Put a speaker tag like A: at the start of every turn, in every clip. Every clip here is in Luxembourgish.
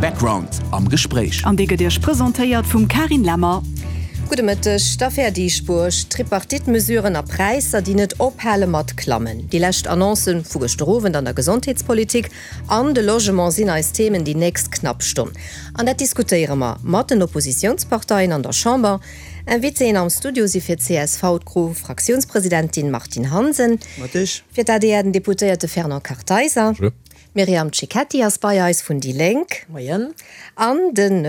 A: Background am Gespréich.
B: An dee gëtt Iech presentéiert vum Carine Lemmer.
C: Gudde Mëtteg. D'Affär Dieschbourg, Tripartite-Mesuren a Präisser, déi net ophale mat klammen. Déi lescht Annoncen vu gëschter Owend an der Gesondheetspolitik an de Logement sinn eis Themen déi nächst knapp Stonn. An dat diskutéiere mer mat den Oppositiounsparteien an der Chamber. Invitéen am Studio si fir csv d'Gro-Fraktiounspresidentin Martine Hansen, fir d'ADR den Deputéierte Fernand Kartheiser, d'Myriam Cecchetti ass bei eis vun déi Lénk an den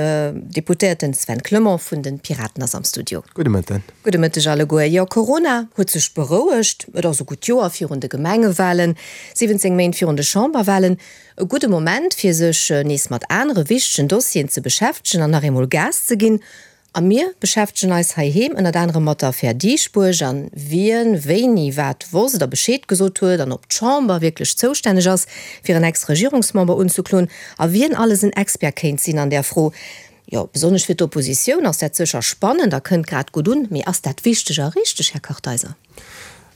C: Deputéierten Sven Clement vun de Piraten ass am Studio.
D: Gudde Mëtten.
C: Gudde Mëtteg alleguer. Jo, Corona huet sech berouegt. Et ass e gutt Joer virun de Gemengewalen, 17 Méint virun de Chamberwalen. E gudde Moment fir sech nees mat anere wichtegen Dossieren ze beschäftegen an nach eemol Gas ze ginn. A mir beschäftegen eis heiheem ënnert anerem mat der Affär Dieschbourg an wien wéini wat wosst a Bescheed gesot huet an ob d'Chamber wierklech zoustänneg ass, fir en Ex-Regierungsmember unzekloen a wien alles en Expert kéint sinn an där Fro. Jo, besonnesch fir d'Oppositioun ass dat sécher spannend a kënnt grad gutt un. Mee ass dat wichteg a richteg, Här Kartheiser?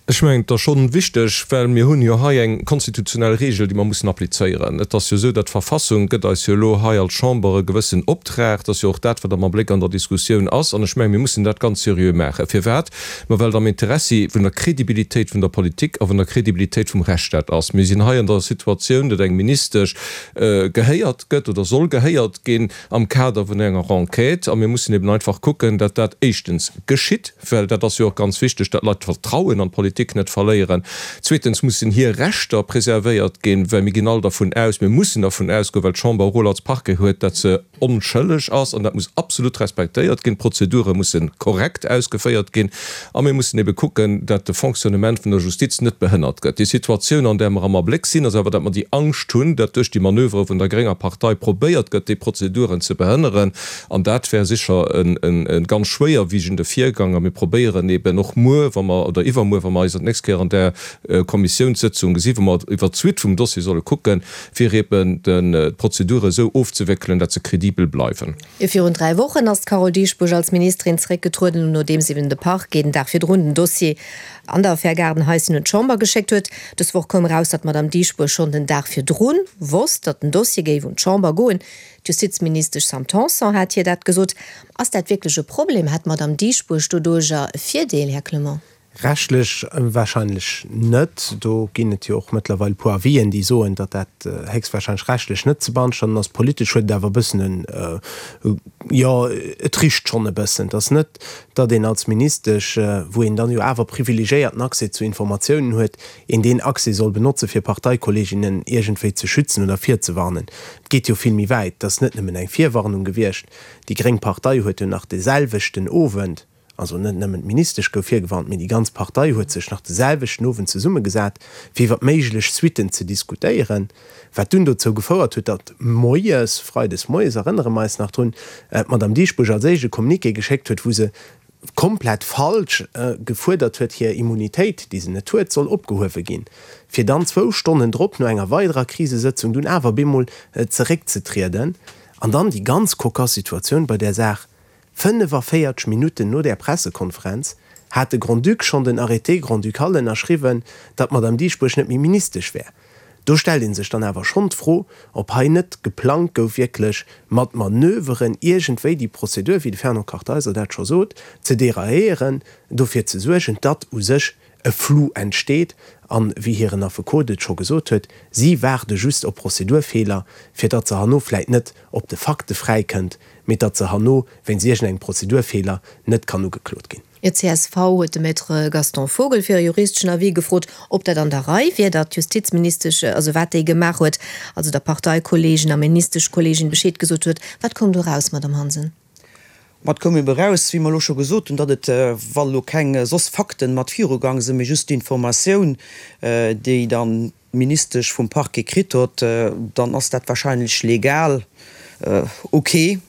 E: Ech mengen, et ass schonn wichteg, well mir hunn jo hei eng konstitutionell Regel, déi mer mussen applizéieren. Et ass jo esou, datt d'Verfassung gëtt eis jo elo hei als Chamber e gewëssen Optrag. Dat ass jo och dat, wat am Abléck an der Diskussioun ass. An ech mengen, mir mussen dat ganz seriö maachen. Firwat? Ma well et am Interessi vun der Kredibilitéit vun der Politik a vun der Kredibilitéit vum Rechtsstaat ass. Mir sinn hei an der Situatioun, datt eng Ministesch gehéiert gëtt oder soll gehéiert ginn am Kader vun enger Enquête. A mir mussen eben einfach kucken, datt dat éischtens geschitt. Well dat ass jo och ganz wichteg, datt d'Leit d'Vertrauen an d'Politik net verléieren. Zweetens mussen hir Rechter preservéiert ginn, well mir ginn all dervun aus, mir mussen dervun ausgoen, well d'Chamber e Rôle als Parquet huet, datt se onschëlleg ass an dat muss absolut respektéiert ginn. D'Prozedure musse korrekt ausgeféiert ginn a mir mussen ebe kucken, datt de Fonctionnement vun der Justiz net behënnert gëtt. Déi Situatioun, an där mer am Abléck sinn, ass awer, datt mer déi Angscht hunn, datt duerch déi Manövere vun der grénger Partei probéiert gëtt, déi Prozeduren ze behënneren. An dat wär sécher e ganz schwéierwiegende Virgang. A mir probéieren eben och muer, wa mer, oder iwwermuer, wa mer eis dat nächst Kéier an där Kommissiounssëtzung gesinn, wou mer iwwert d'Suite vum Dossier solle kucken, fir eben d'Prozedure esou ofzewéckelen, dat se kredibel bleiwen.
C: Virun 3 Wochen ass d'Carole Dieschbourg als Ministerin zeréckgetrueden, nodeems eben de Parquet den Dag virdrun den Dossier an der Affär Gaardenhaischen un d'Chamber geschéckt huet. Dës Woch koum eraus, datt d'Madame Dieschbourg schonn den Dag virdrun wosst, datt den Dossier géif un d'Chamber goen. D'Justizministesch Sam Tanson hat hir dat gesot. Ass dat wierklech e Problem? Hätt d'Madame Dieschbourg doduercher e Virdeel, Här Clement?
D: Rechtlech wahrscheinlech net. Do ginn et jo och mëttlerweil e puer Avisen, déi soen, datt dat héchstwahrscheinlech rechtlech net ze beanstanden ass. Politesch huet et awer e bëssen en, jo, et richt schonn e bëssen. Et ass net, datt een als Ministesch, wou een dann jo awer privilegiéierten Accès zu Informatiounen huet, een deen Accès soll benotzen, fir Parteikolleginnen iergendwéi ze schützen oder virzewarnen. Et geet jo vill méi wäit. Et ass net nëmmen eng Virwarnung gewiescht. Déi gréng Partei huet jo nach de selwechten Owend, also net nëmmen d'Ministesch gouf virgewarnt, mee déi ganz Partei huet sech nach de selwechten Owend zesummegesat, fir iwwer méiglech Suitten ze diskutéieren, wat dunn dozou gefouert huet, datt moies, freides moies, erënnere mer eis nach drun, d'Madame Dieschbourg als éischt e Communiqué geschéckt huet, wou se komplett falsch gefuerdert huet, hir Immunitéit, déi se net huet, soll opgehuewe ginn, fir dann zwou Stonnen drop no enger weiderer Krisesëtzung dunn awer bemol zeréckzetrieden. An dann déi ganz kokass Situatioun bei där Saach, 45 Minutten no där Pressekonferenz hat de Grand-Duc schonn den Arrêté grand-ducal ënnerschriwwen, datt d'Madame Dieschbourg net méi Ministesch wär. Do stellt ee sech dann awer schonn d'Fro, ob hei net geplangt gouf, wierklech mat Manöveren iergendwéi déi Prozedur, wéi de Fernand Kartheiser dat scho sot, ze dérailléieren, dofir ze suergen, datt u sech e Flou entsteet. An, wéi hiren Affekot et scho gesot huet, si waarde just op Prozedurfeeler, fir datt se herno vläit net op de Fakte fräikënnt, mee datt se herno wéinst iergendengem Prozedurfeeler net kann ugeklot ginn.
C: Fir csv huet de Maître Gaston Vogel fir e juristeschen Avis gefrot, ob dat an der Rei wier, datt d'Justizministesch, also wat déi gemaach huet, also der Parteikolleegin a Ministeschkolleegin Bescheed gesot huet. Wat koum do eraus, Madamm Hansen?
F: Ma et koum ebe eraus, wéi mer elo scho gesot hunn, datt et, wa lo keng soss Fakten mat virugang sinn, mee just d'Informatioun, déi dann d'Ministesch vum Parquet kritt hott, dann ass dat wahrscheinlech legal ok.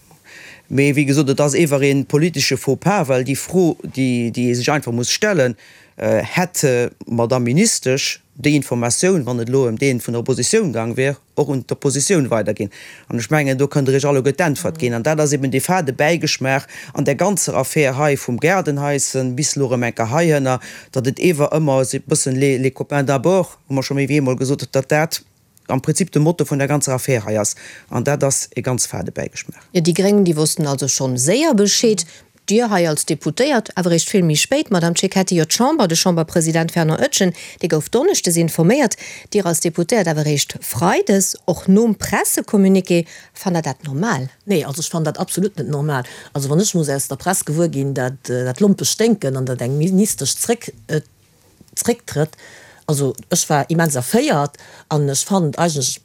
F: Mee wéi gesot, et ass ewer ee politesche Faux-pas, well déi Fro, déi ee sech einfach muss stellen, Hätt d'Madame Ministesch déi Informatioun, wann et elo ëm dee vun der Oppositioun gaang wier, och un d'Oppositioun weiderginn? An ech mengen, do kënnt Der Iech alleguer d'Äntwert ginn. An dat ass eben dee fade Bäigeschmaach an där ganzer Affär hei vum Gaardenhaischen bis elo erëm eng Kéier heihënner, datt et ewer ëmmer esou e bëssen les copains d'abord, hu mer scho méi wéi eemol gesot, datt dat. am Prinzip de Motto vun der ganzer Affär hei ass. An dat ass e ganz fade Bäigeschmaach.
C: Jo, déi Gréng, déi wossten also schonn séier Bescheed. Dir hei als Deputéiert awer eréischt vill méi spéit, Madame Cecchetti. Jo, d'Chamber, de Chamberpresident Fernand Etgen, dee gouf donneschdes informéiert. Dir als Deputéiert awer eréischt freides, och nom Pressecommuniqué. Fannt Der dat normal?
A: Nee, also ech fannen dat absolut net normal. Also wann ech muss aus der Press gewuer ginn, dat dat Lompe sténken an dat eng Ministesch zréck zrécktrëtt, also ech war immens erféiert an ech fannen et eigentlech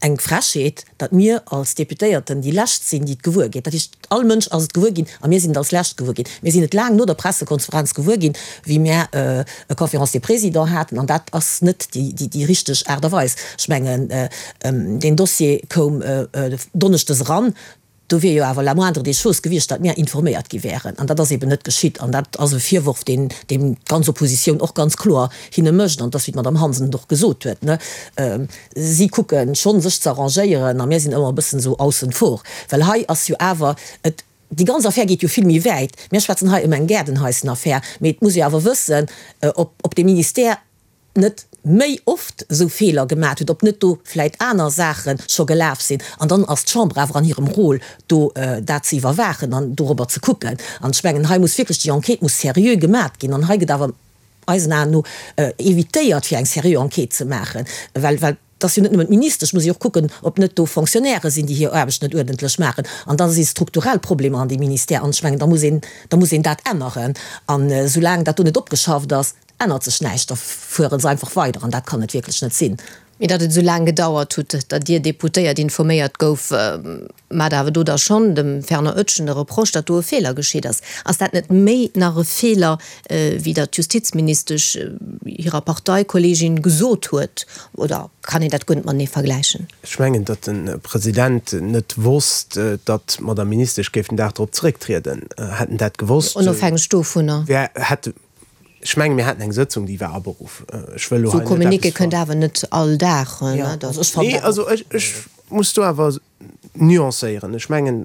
A: eng Frechheet, datt mir als Deputéierten déi Lescht sinn, déi et gewuer ginn. Dat heescht, all Mënsch ass et gewuer ginn a mir sinn et als Lescht gewuer ginn. Mir sinn et laang no der Pressekonferenz gewuer ginn, wéi mir e Conférence des Présidents haten, an dat ass net déi richteg Aart a Weis. Ech mengen, deen Dossier koum donneschdes eran. Do wier jo awer la moindre des choses gewiescht, datt mir informéiert gi wären. An dat ass eben net geschitt. An dat ass e Virworf, deen deen d'ganz Oppositioun och ganz kloer hinne mécht. An et ass, wéi d'Madame Hansen et och gesot huet, ne, si kucke schonn, sech ze arrangéieren, a mir sinn ëmmer e bëssen esou aussen vor. Well hei ass jo awer et, déi ganz Affär geet jo vill méi wäit. Mir schwätzen hei ëm eng Gaardenhaissenaffär, mee et muss ee awer wëssen, ob ob dee Ministère, net méi oft esou Feeler gemat huet, ob net do vläit aner Saache scho gelaf sinn. An dann ass d'Chamber awer an hirem Rôle, do dat ze iwwerwaachen an dorobber ze kucken. An ech mengen, hei muss wierklech, déi Enquête muss seriö gemat ginn. An hei gëtt awer eisen Aen no évitéiert, fir eng seriö Enquête ze maachen, well, well et ass jo net nëmmen d'Ministesch, muss jo och kucken, ob net do Fonctionnairë sinn, déi hir Aarbecht net uerdentlech maachen. An da si strukturell Problemer an deem Ministère. An ech mengen, da muss een, da muss een dat änneren. An esoulaang dat do net opgeschafft ass, ännert sech näischt, da fuere se einfach weider an dat kann et wierklech net sinn.
C: Mee datt et esou laang gedauert hutt, datt Dir Deputéiert informéiert gouf, mat awer do da schonn dem Fernand Oetschen de Reproche, datt do e Feeler geschitt ass. Ass dat net méi nach e Feeler, wéi datt d'Justizministesch hirer Parteikolleegin gesot huet? Oder kann een dat guer net matenee vergläichen?
D: Ech mengen, datt de President net wosst, datt d'Madame Ministesch géif den Dag drop zerécktrieden. Hätt en dat gewosst,
C: Onofhängeg dovunner.
D: wär, hätt Ech menge mir haten eng Sëtzung, déi war aberuff. Ech wëll elo
C: hei net eppes. Esou Communiqué kënnt awer net all Dag, ne?
D: Nee, also ech, ech muss do awer nuancéieren. Ech mengen,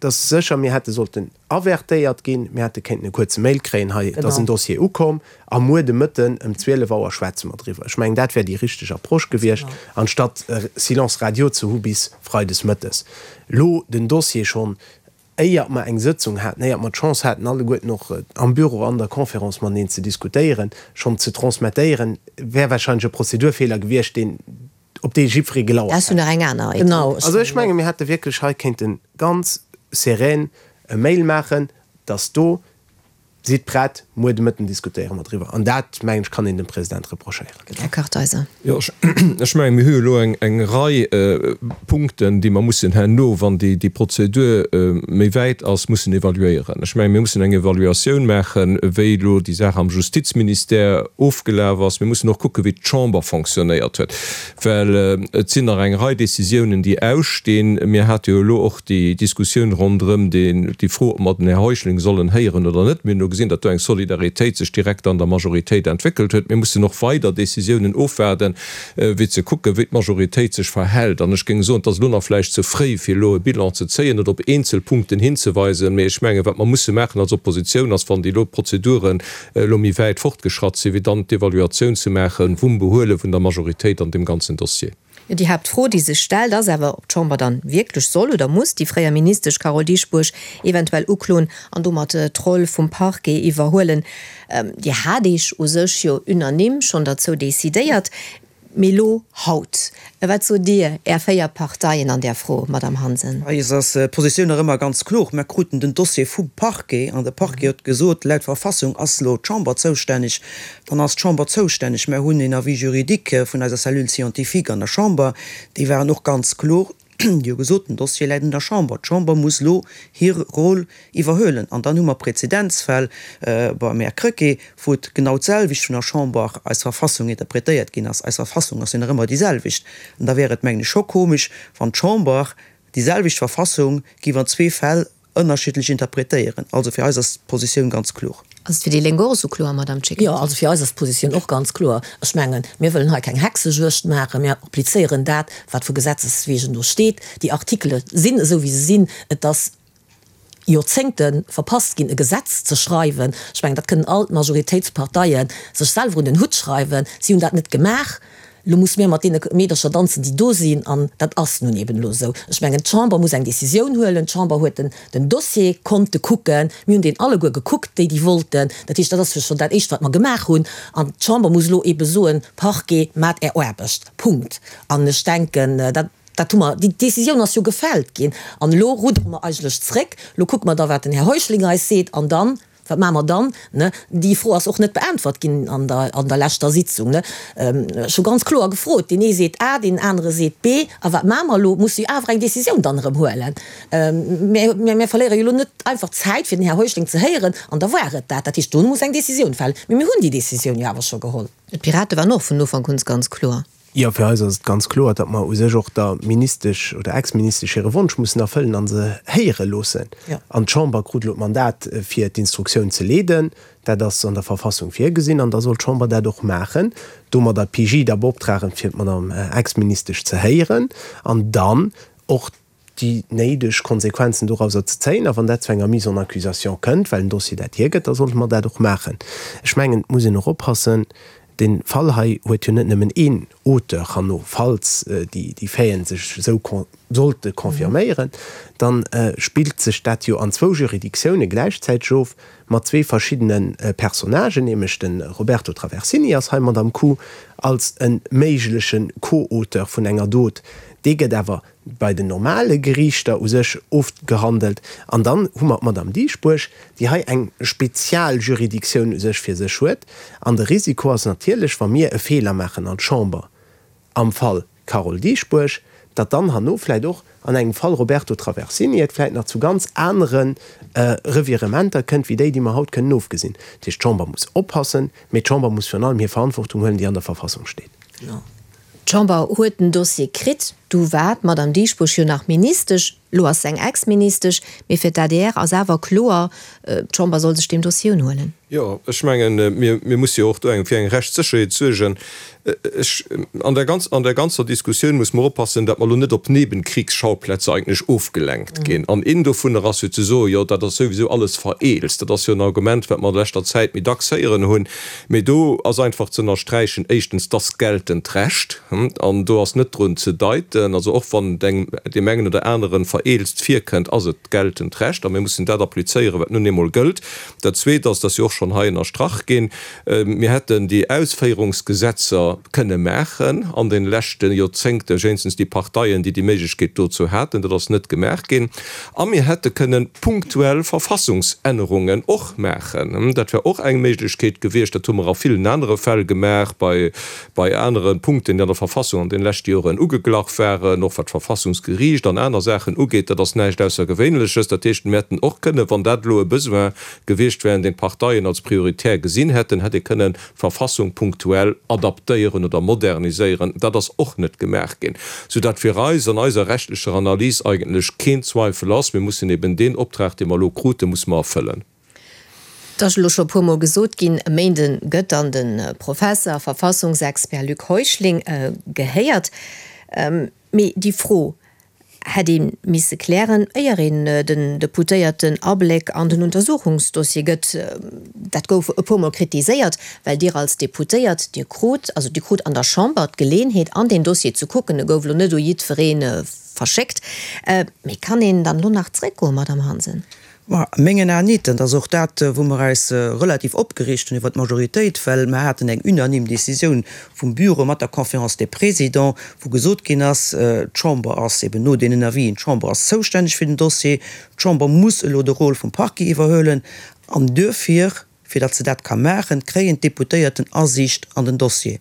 D: dass sécher mir hätte sollten avertéiert ginn, mir hätte kéinten e kuerze Mail kréien, hei, et ass en Dossier ukomm a muer de Mëtten ëm 12 Auer schwätze mer driwwer. Ech mengen, dat wär déi richteg Approche gewiescht, anstatt Silence radio ze hu bis freides mëttes. Elo den Dossier schonn éiert mer eng Sëtzung haten, éiert mer d'Chance haten, alleguerten och am Büro an der Conférence mateneen ze diskutéieren, schonn ze transmettéieren, wär wahrscheinlech e Prozedurfeeler gewiescht, deen, op dee jiddweree gelauert
C: hätt. Dat ass jo nach eng aner Etapp.
D: Also ech menge mir hätte wierklech hei kéinte ganz serän e Mail maachen, dass do Sidd prett, muer de Mëtten diskutéiere mer driwwer. An dat, mengen ech, kann een dem President reprochéieren.
C: Här Kartheiser.
E: Jo, ech mengen, mir hu jo elo eng Rei Punkten, déi mer mussen herno, wann déi Prozedur méi wäit ass, mussen evaluéieren. Ech mengen, mir mussen eng Evaluatioun maachen, wéi elo déi Saach am Justizministère ofgelaf ass. Mir mussen och kucken, wéi d'Chamber fonctionnéiert huet, well et sinn nach eng Rei Décisiounen, déi ausstinn. Mir hate jo elo och déi Diskussioun ronderëm déi Fro, ob mer den Här Heuschling sollen héieren oder net. Mir hunn elo gesinn, datt do eng Solidaritéit sech direkt an der Majoritéit entwéckelt huet. Mir mussen och weider Décisiounen ofwaarden, fir ze kucken, wéi d'Majoritéit sech verhält. An ech géing soen, et ass elo nach vläicht ze fréi, fir elo e Bilan ze zéien oder op eenzel Punkten hinzeweisen. Mee ech mengen, wat mer musse maachen als Oppositioun, ass, wann déi elo Prozeduren elo méi wäit fortgeschratt sinn, fir dann d'Evaluatioun ze maache vum Behuele vun der Majoritéit an deem ganzen Dossier.
C: Déi Haaptfro, déi sech stellt, ass awer, ob d'Chamber dann wierklech soll oder muss déi fréier Ministesch Carole Dieschbourg eventuell ukloen an domat d'Roll vum Parquet iwwerhuelen. Dir hat Iech u sech jo unanime schonn derzou decidéiert. Mee elo haut, wat sot Dir, Är 4 Parteien an där Fro, Madamm Hansen?
F: Eis ass d'Positioun nach ëmmer ganz kloer. Mer kruten den Dossier vum Parquet an de Parquet huet gesot, laut Verfassung ass elo d'Chamber zoustänneg. Dann ass d'Chamber zoustänneg. Mer hunn een Avis juridique vun eiser Cellule scientifique an der Chamber. Déi waren och ganz kloer. Déi hu gesot, den Dossier läit un der Chamber. D'Chamber muss elo hir Rôle iwwerhuelen. An dann hu mer Prezedenzfäll beim Här Krecké, wou et genau d'selwecht vun der Chamber, eis Verfassung, interpretéiert ginn ass. Eis Verfassung ass jo nach ëmmer déi selwecht. An da wär et, mengen ech, scho komesch, wann d'Chamber déi selwecht Verfassung géif an zwee Fäll ënnerschiddlech interpretéieren. Also fir eis ass d'Positioun ganz kloer.
C: Ass et fir déi Lénk och esou kloer, Madame Cecchetti?
A: Jo, also fir eis ass d'Positioun och ganz kloer. Ech mengen, mir wëllen hei keng Hexejuegd maachen. Mir applizéieren dat, wat vu Gesetzes wegen do steet. Déi Artikele sinn esou, wéi se sinn. Et ass Joerzéngte verpasst ginn, e Gesetz ze schreiwen. Ech mengen, dat kënnen all d'Majoritéitsparteie sech selwer un den Hutt schreiwen. Si hunn dat net gemaach. Elo musse mir mat deene Meedercher danzen, déi do sinn, an dat ass nun eben elo esou. Ech mengen, d'Chamber muss eng Décisioun huelen. D'Chamber huet den, den Dossier konnte kucken. Mir hunn deen alleguer gekuckt, déi, déi wollten. Dat heescht, dat ass jo schonn dat Éischt, wat mer gemaach hunn. An d'Chamber muss elo ebe soen, Parquet, maacht Är Aarbecht. Punkt. An ech denken, dat, dat hu mer, déi Décisioun ass jo gefällt ginn. An elo ruddere mer eigentlech zréck. Elo kucke mer da, wat den Här Heuschling eis seet, an dann Wat maache mer dann? Ne? Déi Fro ass och net beäntwert ginn an der, an der leschter Sitzung. Ne? Ech hu ganz kloer gefrot, deen ee seet A, deen anere seet B, a wat maache mer elo? Musse jo awer eng Décisioun dann erëm huelen. Mir, mir verléiere jo elo net einfach Zäit, fir den Här Heuschling ze héieren, an da war et dat. Dat heescht, do muss eng Décisioun falen. Mee mir hunn déi Décisioun jo awer scho geholl.
C: D'Pirate waren och vun Ufank un ganz kloer.
D: Jo, fir eis ass et ganz kloer, datt mer u sech och der Ministesch oder Ex-Ministesch hire Wonsch mussen erfëllen a se héiere loossen. An d'Chamber krut elo d'Mandat, fir d'Instruktioun ze leeden. Dat ass an der Verfassung virgesinn an da soll d'Chamber dat och maachen, domadder d'PJ da beoptragen, fir d'Madame Ex-Ministesch ze héieren an dann och déi néideg Konsequenzen dorauser ze zéien. A wann dat zu enger Mise en accusation kënnt, well den Dossier dat hiergëtt, da sollte mer dat och maachen. Ech mengen, et muss een och oppassen, dee Fall hei huet jo net nëmmen een Auteur herno, falls déi Faiten sech esou sollte confirméieren, da spillt sech dat jo an zwou Juridictiounen gläichzäiteg of, mat zwee verschiddene Personnagen, nämlech de Roberto Traversini ass hei mat am Coup als e méigleche Co-Auteur vun enger Dot, dee gëtt awer bei den normale Geriichter u sech ofgehandelt. An dann hu mer d'Madame Dieschbourg, déi hei eng Spezialjuridictioun u sech fir sech huet. An de Risiko ass natierlech, wa mir e Feeler maachen als Chamber am Fall Carole Dieschbourg, datt dann herno vläicht och an engem Fall Roberto Traversini et vläicht nach zu ganz anere Revirementer kënnt wéi déi, déi mer haut kënnen ofgesinn. Dat heescht, d'Chamber muss oppassen, mee d'Chamber muss virun allem hir Verantwortung huelen, déi an der Verfassung steet.
C: D'Chamber huet den Dossier kritt, du war d'Madame Dieschbourg jo nach Ministesch, lo ass se eng Ex-Ministesch, mee fir d'ADR ass awer kloer, d'Chamber soll sech deem Dossier unhuelen.
E: Jo, ech mengen, mir, mir musse jo och do eng, fir eng Rechtssécherheet suergen. Ech, an der ganz, an der ganzer Diskussioun muss mer oppassen, datt mer elo net op Nebenkriegsschauplätze eigentlech ofgelenkt ginn. An een dovunner ass jo ze soen, jo dat ass souwisou alles vereelzt. Dat ass jo en Argument, wat mer an leschter Zäit méi dacks héieren hunn. Mee do ass einfach ze ënnersträichen, éischtens, dass geltend Recht, an do ass net drun ze deiten, also och wann et engem, deem engen oder aneren, vereelzt virkënnt, ass et geltend Recht a mir mussen dat applizéieren, wat nun eemol gëllt. Dat Zweet ass, dat ass jo och schonn hei ënnerstrach ginn, mir hätten déi Ausféierungsgesetzer kënne maachen an de leschte Joerzéngten, wéinstens déi Parteien, déi déi Méiglechkeet dozou haten. Dat ass net gemaach ginn. A mir hätte kënnen punktuell Verfassungsännerungen och maachen. Dat wär och eng Méiglechkeet gewiescht. Dat hu mer a villen anere Fäll gemaach, bei, bei anere Punkten, déi an der Verfassung an deene leschte Joren ugeglach waren, och wat d'Verfassungsgeriicht an aner Saachen ugeet. Dat ass näischt Aussergewéinleches. Dat heescht, mir hätten och kënnen, wann dat elo e Besoin gewiescht wär, deen d'Parteien als prioritär gesinn hätten, hätt ee kënnen d'Verfassung punktuell adaptéieren oder moderniséieren, dat ass och net gemaach ginn, soudatt fir eis an eiser rechtlecher Analys eigentlech keen Zweifel ass, mir mussen eben deen Optrag, dee mer elo kruten, musse mer erfëllen.
C: Et ass elo scho e puermol gesot ginn, e Méinde gëtt dann de Professer a Verfassungsexpert Luc Heuschling gehéiert. Mee déi Fro hätt ee misse klären, éier een den Deputéierten Abléck an den Untersuchungsdossier gëtt. Dat gouf e puermol kritiséiert, well Dir als Deputéiert, Dir krut, also Dir krut an der Chamber d'Geleenheet, an deen Dossier ze kucken. E gouf elo net u jiddweree verschéckt. Mee kann een dann elo nach zréckgoen, Madamm Hansen?
F: Ma a mengen Aen nit. Dat ass och dat, wou mer eis relativ opgereegt hunn iwwert d'Majoritéit, well mer haten eng unanime Décisioun vum Bureau mat der Conférence des Présidents, wou gesot ginn ass, d'Chamber ass eben no deenen Avisen, d'Chamber ass zoustänneg fir den Dossier, d'Chamber muss elo de Rôle vum Parquet iwwerhuelen an duerfir, Fir datt se dat ka maachen, kréien d'Deputéierten Asiicht an den Dossier.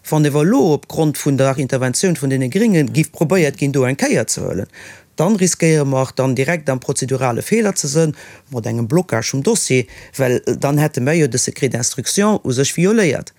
F: Wann ewer elo op Grond vun der Interventioun vun deene Gringe giff probéiert ginn, do eng Kéier ze huelen, dann riskéiere mer dann direkt am prozedurale Feeler ze sënn, mat engem Blocage vum Dossier, well dann hätte mer jo de Secret d'instruction u sech violéiert.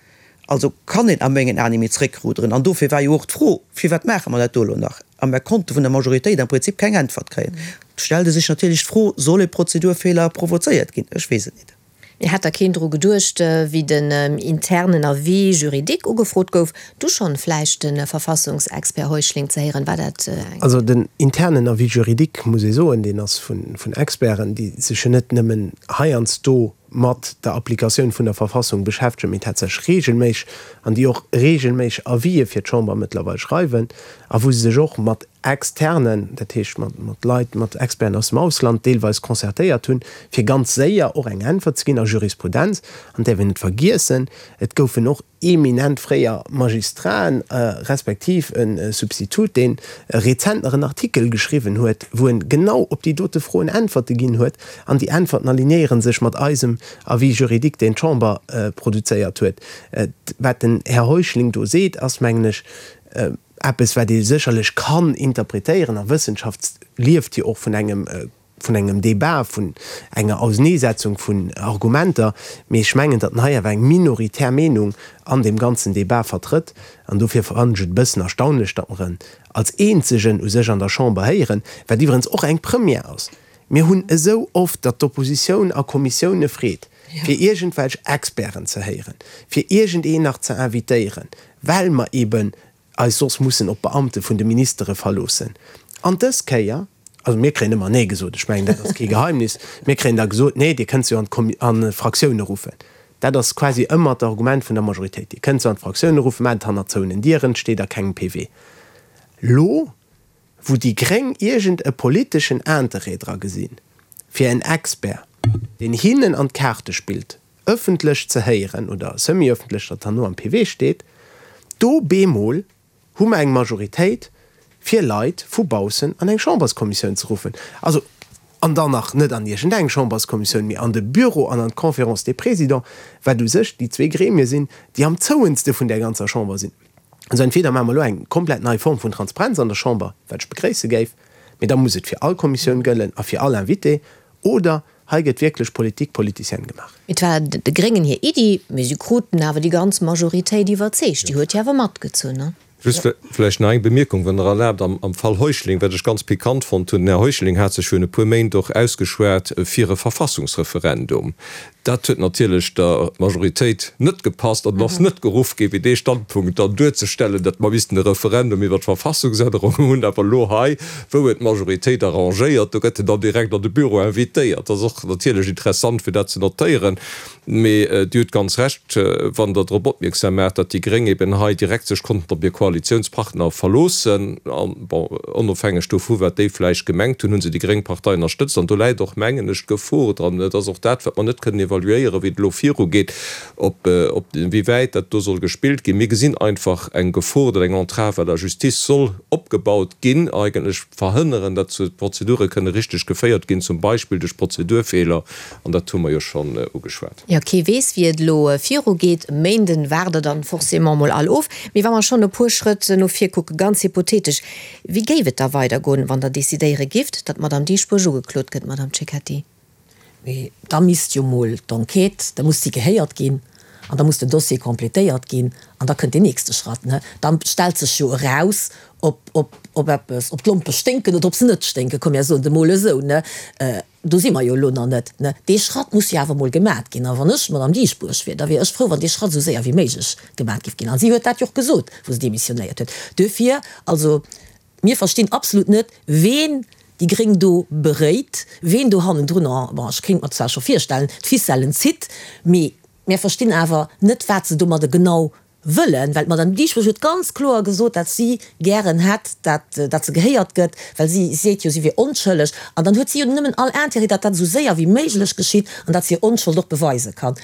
F: Also kann een a mengen Aen ni méi zréckruderen. An dofir war jo och d'Fro, Firwat maache mer dat do elo nach? A mer konnte vun der Majoritéit am Prinzip keng Äntwert kréien. Et stellt e sech natierlech d'Fro, Soll e Prozedurfeeler provozéiert ginn? Ech weess et nit.
C: Mee hat da keen dru geduecht, wéi den internen Avis juridique ugefrot gouf, du schonn vläicht de Verfassungsexpert Heuschling ze héieren? War dat
D: eng. Also den internen Avis juridique, muss ee soen, deen ass vun Experten, déi sech jo net nëmmen heiansdo. mat der Applikatioun vun der Verfassung beschäftegen, mee tatsächlech regelméisseg, an déi och regelméisseg Avisë fir d'Chamber mëttlerweil schreiwen a wou se sech och mat Externen, dat heescht mat Leit, mat Experten aus dem Ausland deelweis concertéiert hunn, fir ganz séier och eng Äntwert ze ginn a Jurisprudenz. An däerf een net vergiessen, et goufen och eminent fréier Magistraten, respektiv e Substitut, dee rezent nach en Artikel geschriwwen huet, wou en genau op déi dote Froen Äntwerte ginn huet. An déi Äntwerten alignéiere sech mat eisem Avis juridique, deen d'Chamber produzéiert huet. Wat den Här Heuschling do seet, ass, mengen ech, eppes, wat ee sécherlech kann interpretéieren. A Wëssenschaft lieft jo och vun engem vun engem Débat, vun enger Auseneesetzung vun Argumenter, mee ech mengen, datt en hei awer eng minoritär Meenung an deem ganzen Débat vertrëtt. An dofir fannen ech et e bëssen erstaunlech, datt mer en als eenzegen u sech an der Chamber héieren, wat iwwerens och eng Première ass. Mir hunn esou oft, datt d'Oppositioun a Kommissioune freet, fir iergendwelch Experten ze héieren, fir iergendeen nach ze invitéieren, well mer eeben eis soss mussen op d'Beamte vun de Ministere verloossen. An dës Kéier, also mir kréien ëmmer Nee gesot, ech mengen, dat ass kee Geheimnis, mir kréien da gesot, Nee, Dir kënnt se jo an d'Fraktioune ruffen. Dat ass quasi ëmmer d'Argument vun der Majoritéit, Dir kënnt se an d'Fraktioune ruffen, maacht et hannert zouenen Dieren, et steet a kengem PV. Lo wou déi Gréng iergend e politeschen Interêt dra gesinn, fir en Expert, deen hinnen an d'Kaarte spillt, ëffentlech ze héieren, oder semi-ëffentlech, datt herno am PV steet, do bemol hu mer eng Majoritéit, fir Leit vu baussen an eng Chamberskommissioun ze ruffen. Also, an dann nach net an iergendeng Chamberskommissioun, mee an de Büro an an d'Conférence des Présidents, wat u sech déi zwee Gremie sinn, déi am zouenste vun där ganzer Chamber sinn. Also entweder maache mer elo eng komplett nei Form vun Transparenz an der Chamber, wat ech begréisse géif, mee da muss et fir all Kommissioun gëllen a fir all Invité, oder hei gëtt wierklech Politique politicienne gemaach.
C: Et war de Gréngen hir Iddi, mee si kruten awer déi ganz Majoritéit iwwerzeegt. Déi huet jo awer matgezunn, ne?
E: Just vläicht nach eng Bemierkung, wann Der erlaabt, am Fall Heuschling, wat ech ganz pikant fonnt hunn, Den Här Heuschling hat sech virun e puer Méint och ausgeschwat fir e Verfassungsreferendum. Dat huet natierlech der Majoritéit net gepasst an et ass net geruff gi fir dee Standpunkt dann duerzestellen, datt mer missten e Referendum iwwer d'Verfassungsännerung hunn. Awer elo hei, wou et d'Majoritéit arrangéiert, do gëtt en dann direkt an de Büro invitéiert. Dat ass och natierlech interessant fir dat ze notéieren. Mee Dir hutt ganz Recht, wann Der drop opmierksam maacht, datt déi Gréng eben hei direkt sech konnten op hir Koalitionspartner verloossen. An, bon, onofhängeg dovu wat déi vläicht gemengt hunn, hu se déi gréng Partei ënnerstëtzt. An do läit och, mengen ech, d'Gefor dran, et ass och dat, wat mer net kënnen evaluéieren, wéi et elo virugeet, ob, ob, wéi wäit dat do soll gespillt ginn. Mir gesinn einfach eng Gefor, datt eng Entrave à la justice soll opgebaut ginn, eigentlech verhënneren, datt d'Prozedure kënne richteg geféiert ginn, zum Beispill duerch Prozedurfeeler, an dat hu mer jo schonn ugeschwat.
C: Jo, kee weess, wéi et elo virugeet. E Méinden waart der dann forcément mol all of. Mee wa mer schonn e puer Schrëtt no vir kucken, ganz hypothetesch, wéi géif et da weidergoen, wann Der decidéiere gifft, datt d'Madame Dieschbourg ugeklot gëtt, Madame Cecchetti?
A: Mee da misst jo mol d'Enquête, da muss si gehéiert ginn an da muss den Dossier complétéiert ginn an da kënnt deen nächste Schratt. Da stellt sech jo eraus, ob, ob, ob eppes, ob d'Lompe sténken oder ob se net sténken, komm mir soen et emol esou. Do si mer jo elo nach net. Dee Schratt muss jo awer emol gemat ginn. A wann ech d'Madame Dieschbourg wier, da wier ech frou, wann dee Schratt esou séier wéi méiglech gemat géif ginn. A si huet dat jo och gesot, wou se demissionéiert huet. Duerfir, also, Mir verstinn absolut net, ween déi Gréng do beréit, ween do hannendrun, bon, ech kéint mer zwar scho virstellen, d'Ficellen zitt, mee mir verstinn awer net, wat se domadde genau wëllen, well d'Madame Dieschbourg huet ganz kloer gesot, dat si gären hätt, dat, dat se gehéiert gëtt, well si seet jo, si wier onschëlleg. An dann huet si jo nëmmen all Intérêt, dat dat esou séier wéi méiglech geschitt an dat se hir Onschold och beweise kann.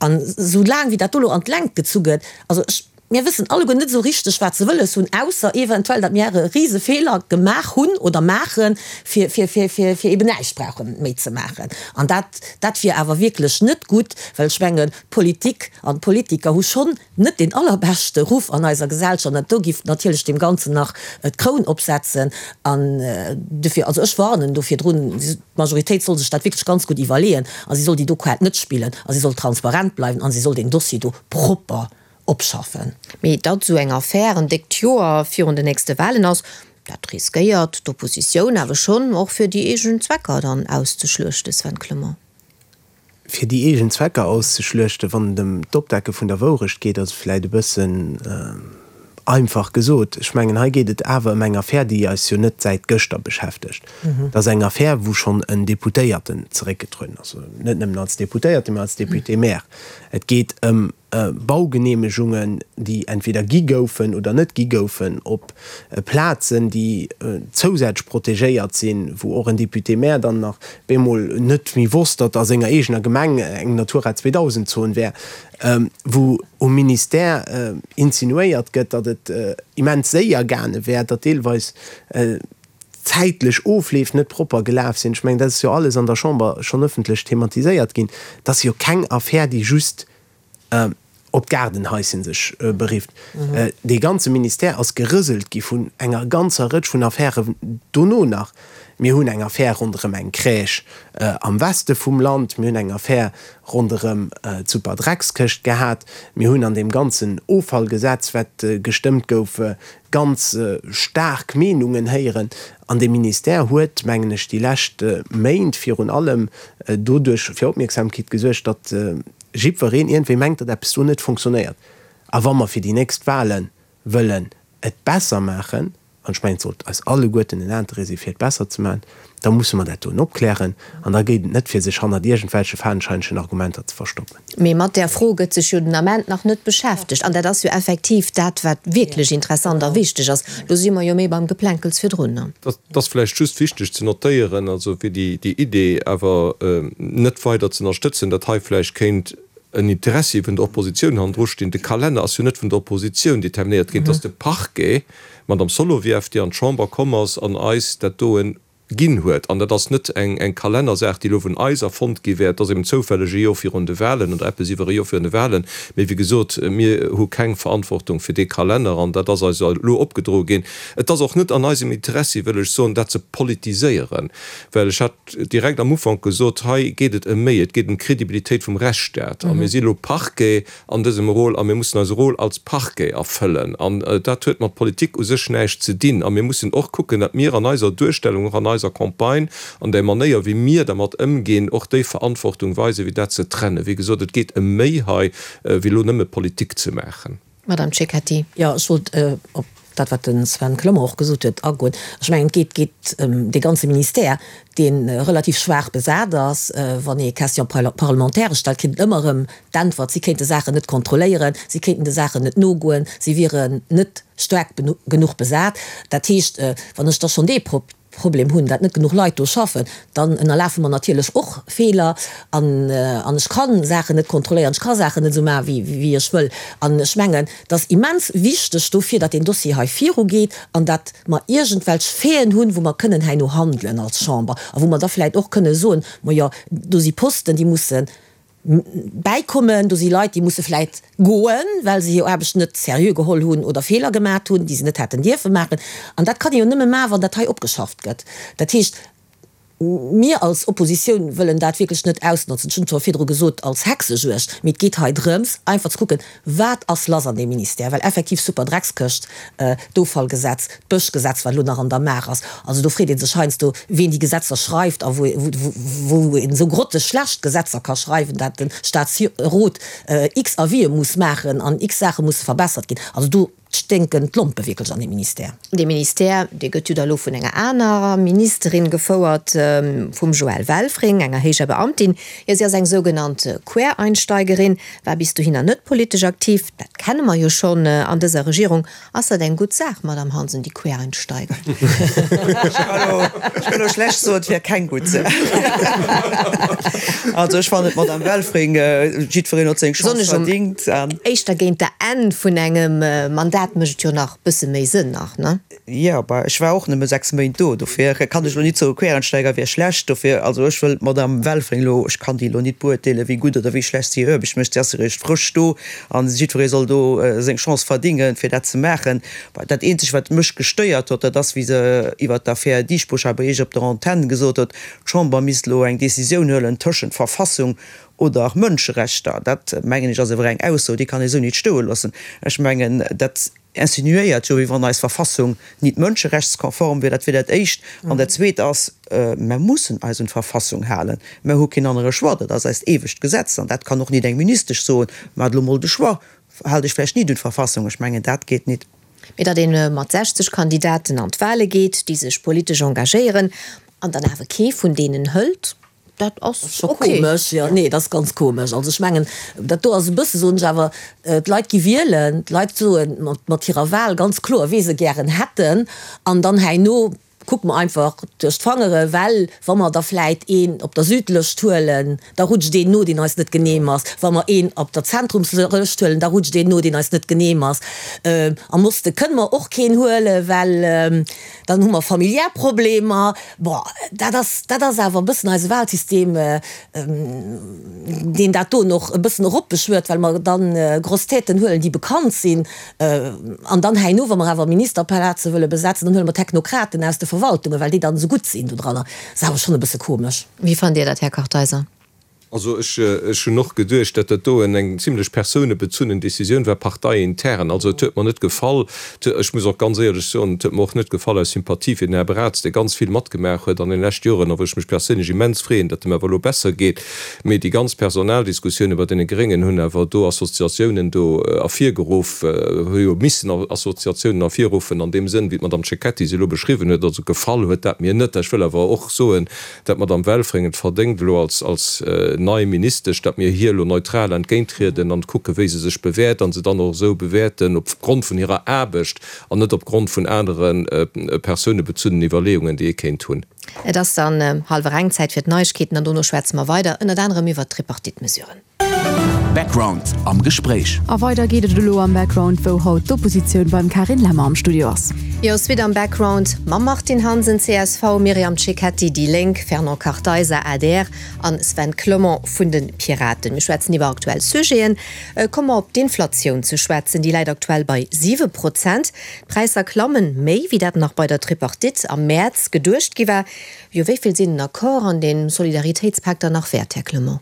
A: An esou laang wéi dat do elo an d'Längt gezu gëtt, also ech, Mir wëssen alleguer net esou richteg, wat se wëlles hunn, ausser eventuell, datt mir e rise Feeler gemaach hunn oder maachen, fir, fir, fir, fir, fir eben näischt brauche méi ze maachen. An dat, dat wier awer wierklech net gutt, well ech mengen, d'Politik an d'Politiker hu schonn net deen allerbeschte Ruff an eiser Gesellschaft. An dat do giff natierlech deem Ganzen nach d'Kroun opsetzen. An dofir, also ech warnen do virdrun, d'Majoritéit soll sech dat wierklech ganz gutt iwwerleeën a si soll déi do Kaart net spillen a si soll transparent bleiwen a si soll deen Dossier do propper opschaffen.
C: Mee datt esou eng Affär en déckt Joer virun den nächste Walen ass, dat riskéiert d'Oppositioun awer schonn och fir déi eegen Zwecker dann auszeschluechten, Sven Clement.
D: Fir déi eegen Zwecker auszeschluechten, wann et ëm d'Opdecke vun der Wourecht geet, ass et vläicht e bëssen. Einfach gesot, ech mengen, hei geet et awer ëm eng Affär, déi eis jo net säit gëschter beschäftegt. Dat ass eng Affär, wou schonn en Deputéierten zeréckgetrueden ass, net nëmmen als Deputéierten, mä als Député-maire. Et geet ëm Baugeneemegungen, déi entweder gi goufen oder net gi goufen, op Plazen, déi zousätzlech protegéiert sinn, wou och en Député-maire dann nach bemol net méi wosst, datt a senger eegener Gemeng eng Natura 2000 Zon wär, wou um Ministère insinuéiert gëtt, datt et immens séier gaange wär, datt deelweis zäitlech Ofleef net propper gelaf sinn. Ech mengen, dat ass jo alles an der Chamber schonn ëffentlech thematiséiert ginn. Dat ass jo keng Affär, déi just op d'Gaardenhaischen sech berifft. Dee ganze Ministère ass gerëselt gi vun enger ganzer Rëtsch vun Affären dono nach. Mir hunn eng Affär ronderëm eng Crèche am Weste vum Land, mir hunn eng Affär ronderëm d'Superdreckskëscht gehat, mir hunn an deem ganzen Offallgesetz, wat gestëmmt gouf, ganz staark Meenungen héieren. An dee Ministère huet, mengen ech, déi lescht Méint virun allem doduerch fir Opmierksamkeet gesuergt, datt jiddwereen iergendwéi mengt, datt eppes do net funktionéiert. A wa mer fir déi nächst Wahle wëllen et besser maachen, an ech mengen, et sollt eis alleguerten en Interêt si fir et besser ze maachen, da musse mer dat doen opklären. An da geet et net, fir sech hannert iergendwelche fadenscheinegen Argumenter ze verstoppen.
C: Mee mat där Fro gëtt sech jo den Ament nach net beschäftegt. An dat ass jo effektiv dat, wat wierklech interessant a wichteg ass. Lo si mer jo méi beim Geplänkels virdrun.
E: Et ass vläicht just wichteg ze notéieren, also fir déi Idee awer net weider ze ënnerstëtzen, datt hei vläicht kéint en Interessi vun der Oppositioun hannendru stinn. De Kalenner ass jo net vun der Oppositioun determinéiert ginn, et ass de Parquet, d'Madame Solovieff, déi an d'Chamber komm ass an eis dat doen ginn huet. An dat ass net eng Kalennersaach, déi elo vun eis erfonnt gi wär. Et ass eben zoufälleg e Jor virun de Wahlen oder eppes iwwer e Jor virun de Wahlen. Mee wéi gesot, mir hu keng Verantwortung fir dee Kalenner an dat ass eis elo opgedroe ginn. Et ass och net an eisem Interessi, wëll ech soen, dat ze politiséieren, well ech hat direkt am Ufank gesot, hei geet et ëm méi, et geet ëm d'Credibilitéit vum Rechtsstaat. A mir si elo Parquet an dësem Rôle a mir mussen eise Rôle als Parquet erfëllen. An dat huet mat Politik u sech näischt ze dinn. A mir mussen och kucken, datt mir an eiser Duerstellung, och an eiser Campagne, an där Manéier wéi mir dermat ëmginn, och déi Verantwortung weisen, fir dat ze trennen. Wéi gesot, et geet ëm méi hei, wéi elo nëmme Politik ze maachen.
C: Madame Cecchetti.
A: Jo, ech wollt op dat, wat de Sven Clement och gesot huet, agoen. Ech mengen, et geet geet ëm dee ganze Ministère, dee relativ schwaach besat ass. Wann ee Question parlementaire stellt, kritt een ëmmer erëm d'Äntwert, si kéinte Saachen net kontrolléieren, si kéinten de Saachen net nogoen, si wieren net staark genuch besat. Dat heescht, wann ech da schonn dee Problem hunn, dat net genuch Leit do schaffen, dann ënnerlafe mer natierlech och Feeler an an ech ka Saachen net kontrolléieren, ech ka Saachen net esou maachen, wéi wéi ech wëll. An ech mengen, et ass immens wichteg dofir, datt deen Dossier hei virugeet an datt mer iergendwelch Faiten hunn, wou mer kënnen herno handelen als Chamber a wou mer da vläicht och kënne soen, Majo, do si Posten, déi mussen bäikommen. Do si Leit, déi musse vläit goen, well se hir Aarbecht net seriö geholl hunn oder Feeler gemat hunn, déi se net hätten dierfe maachen. An dat kann ee jo nëmme maachen, wann dat hei opgeschafft gëtt. Dat heescht, mir als Oppositioun wëllen dat wierklech net ausnotzen, ech hunn et scho virdru gesot, als Hexejuegd, mee et geet hei drëms, einfach ze kucken, Wat ass lass an deem Ministère? Well effektiv Superdreckskëscht, d'Offallgesetz, d'Bëschgesetz, wat elo nach an der Maach ass, also do freet ee sech heiansdo, wien déi Gesetzer schreift a wou wou een esou grotteschlecht Gesetzer ka schreiwen, dat de Staatsrot x Avisë muss maachen an x Saache musse verbessert ginn. Also do sténken d'Lompe wierklech an deem Ministère.
C: Dee Ministère, dee gëtt jo da lo vun enger anerer Ministerin gefouert, vum Joëlle Welfring, enger héijer Beamtin. Jo, si ass eng sougenannt Quereinsteigerin, War bis dohinner net politesch aktiv, dat kenne mer jo schonn an dëser Regierung. Ass dat eng gutt Saach, Madamm Hansen, déi Quereinsteiger?
F: Ech kann elo schlecht soen, et wär keng gutt Saach. Also ech fannen, d'Madamm Welfring, jiddwereen huet seng Chance verdingt.
C: Éischter géint der Enn vun engem Mandat mécht et jo nach bësse méi Sënn nach, ne?
F: Jo, bah, ech war och nëmme 6 Méint do, dofir kann ech elo nit soen, Quereinsteiger wier schlecht. Dofir, also ech wëll d'Madame Welfring elo, ech kann déi elo nit beuerteelen, wéi gutt oder wéi schlecht si hir Aarbecht mécht. Si ass eréischt frësch do a jiddweree soll do seng Chance verdingen, fir dat ze maachen. Bah, dat eenzegt, wat mech gestéiert huet, dat ass, wéi se iwwert d'Affär Dieschbourg hei bei Iech op der Antenn gesot huet, d'Chamber misst elo eng Décisioun huelen tëschent Verfassung oder Mënscherechter. Dat, mengen ech, ass awer eng Ausso, déi kann ee sou nit stoe loossen. Ech mengen, dat. Insinuéiert jo, wéi wann eis Verfassung nit mënscherechtskonform wier. Dat wier dat Éischt. An dat Zweet ass, Mer mussen eis un d'Verfassung halen. Mer hu keen anere Choix. Dat ass eist eewegt Gesetz. An dat kann och nit eng Ministesch soen, Maacht elo mol de Choix, haalt Iech vläicht nit un d'Verfassung. Ech mengen, dat geet nit.
C: Mee datt ee mat 60 Kandidaten an d'Wale geet, déi sech politesch engagéieren, an dann awer kee vun deenen hëlt, dat ass
A: scho komesch. Jo, nee, dat ass ganz komesch. Also ech mengen, dat do ass e bësse, soen ech awer, d'Leit gi wielen, d'Leit soe mat hirer Wal ganz kloer, wee se gären hätten, an dann herno kucke mer einfach duerch d'Fangere, well wa mer da vläit een op der Südlëscht huelen, da rutscht een no, deen eis net genehm ass. Wa mer een op der Zentrumslëscht huelen, da rutscht een no, deen eis net genehm ass. Am Oste kënne mer och keen huelen, well dann hu mer familiär Problemer. Bon, dat ass, dat ass awer e bëssen eise Wahlsystem, deen dat do och e bëssen eropbeschwört, well mer dann Grosses Têten huelen, déi bekannt sinn. An dann herno, wa mer awer Ministerplaze wëlle besetzen, dann huele mer Technokraten aus de Verwaltungen, well déi dann esou gutt sinn dodranner. Dat ass awer schonn e bësse komesch.
C: Wéi fannt Dir dat, Här Kartheiser?
E: Also ech, ech hunn och geduecht, dat dat doen eng zimlech persounebezunnen Décisioun war, parteiintern. Also et huet mer net gefall. Ech muss och ganz éierlech soen, et huet mer och net gefall aus Sympathie fir den Här Braz, dee ganz vill matgemaach huet an den leschte Joren a wou ech mech perséinlech immens freeën, datt em awer elo besser geet. Mee déi ganz Personaldiskussioune bei deene Gréngen hunn awer do Assoziatiounen do ervirgeruff, hu jo missen Assoziatiounen ervirruffen an deem Sënn, wéi d'Madame Cecchetti se elo beschriwwen huet. Also gefall huet dat mir net. Ech wëll awer och soen, dat d'Madame Welfring et verdéngt elo als als nei Ministesch, dat mir hir elo neutral entgéinttrieden an kucke wéi se sech bewäert an se dann och esou bewäerten opgrond vun hirer Aarbecht an net opgrond vun anere persounebezunnen Iwwerleeungen, déi ee kéint hunn.
C: Et ass dann hallwer eng, Zäit fir d'Neiegkeeten an dono schwätze mer weider, ënnert anerem iwwert d'Tripartite-Mesuren.
B: Background am Gespréich. A weider geet et elo am Background, wou haut d'Oppositioun beim Carine Lemmer am Studio ass.
C: Jo, Suite am Background mam Martine Hansen, csv, Myriam Cecchetti, déi Lénk, Fernand Kartheiser, adr, an Sven Clement vun de Piraten. Mir schwätzen iwwer aktuell Sujeten. Komme mer op d'Inflatioun ze schwätzen. Déi läit aktuell bei 7 Prozent. D'Präisser klammen méi, wéi dat nach bei der Tripartite am Mäerz geduecht gi war. Jo, wéi vill sinn den Accord an den Solidaritéitspak dann nach wäert, Här Clement?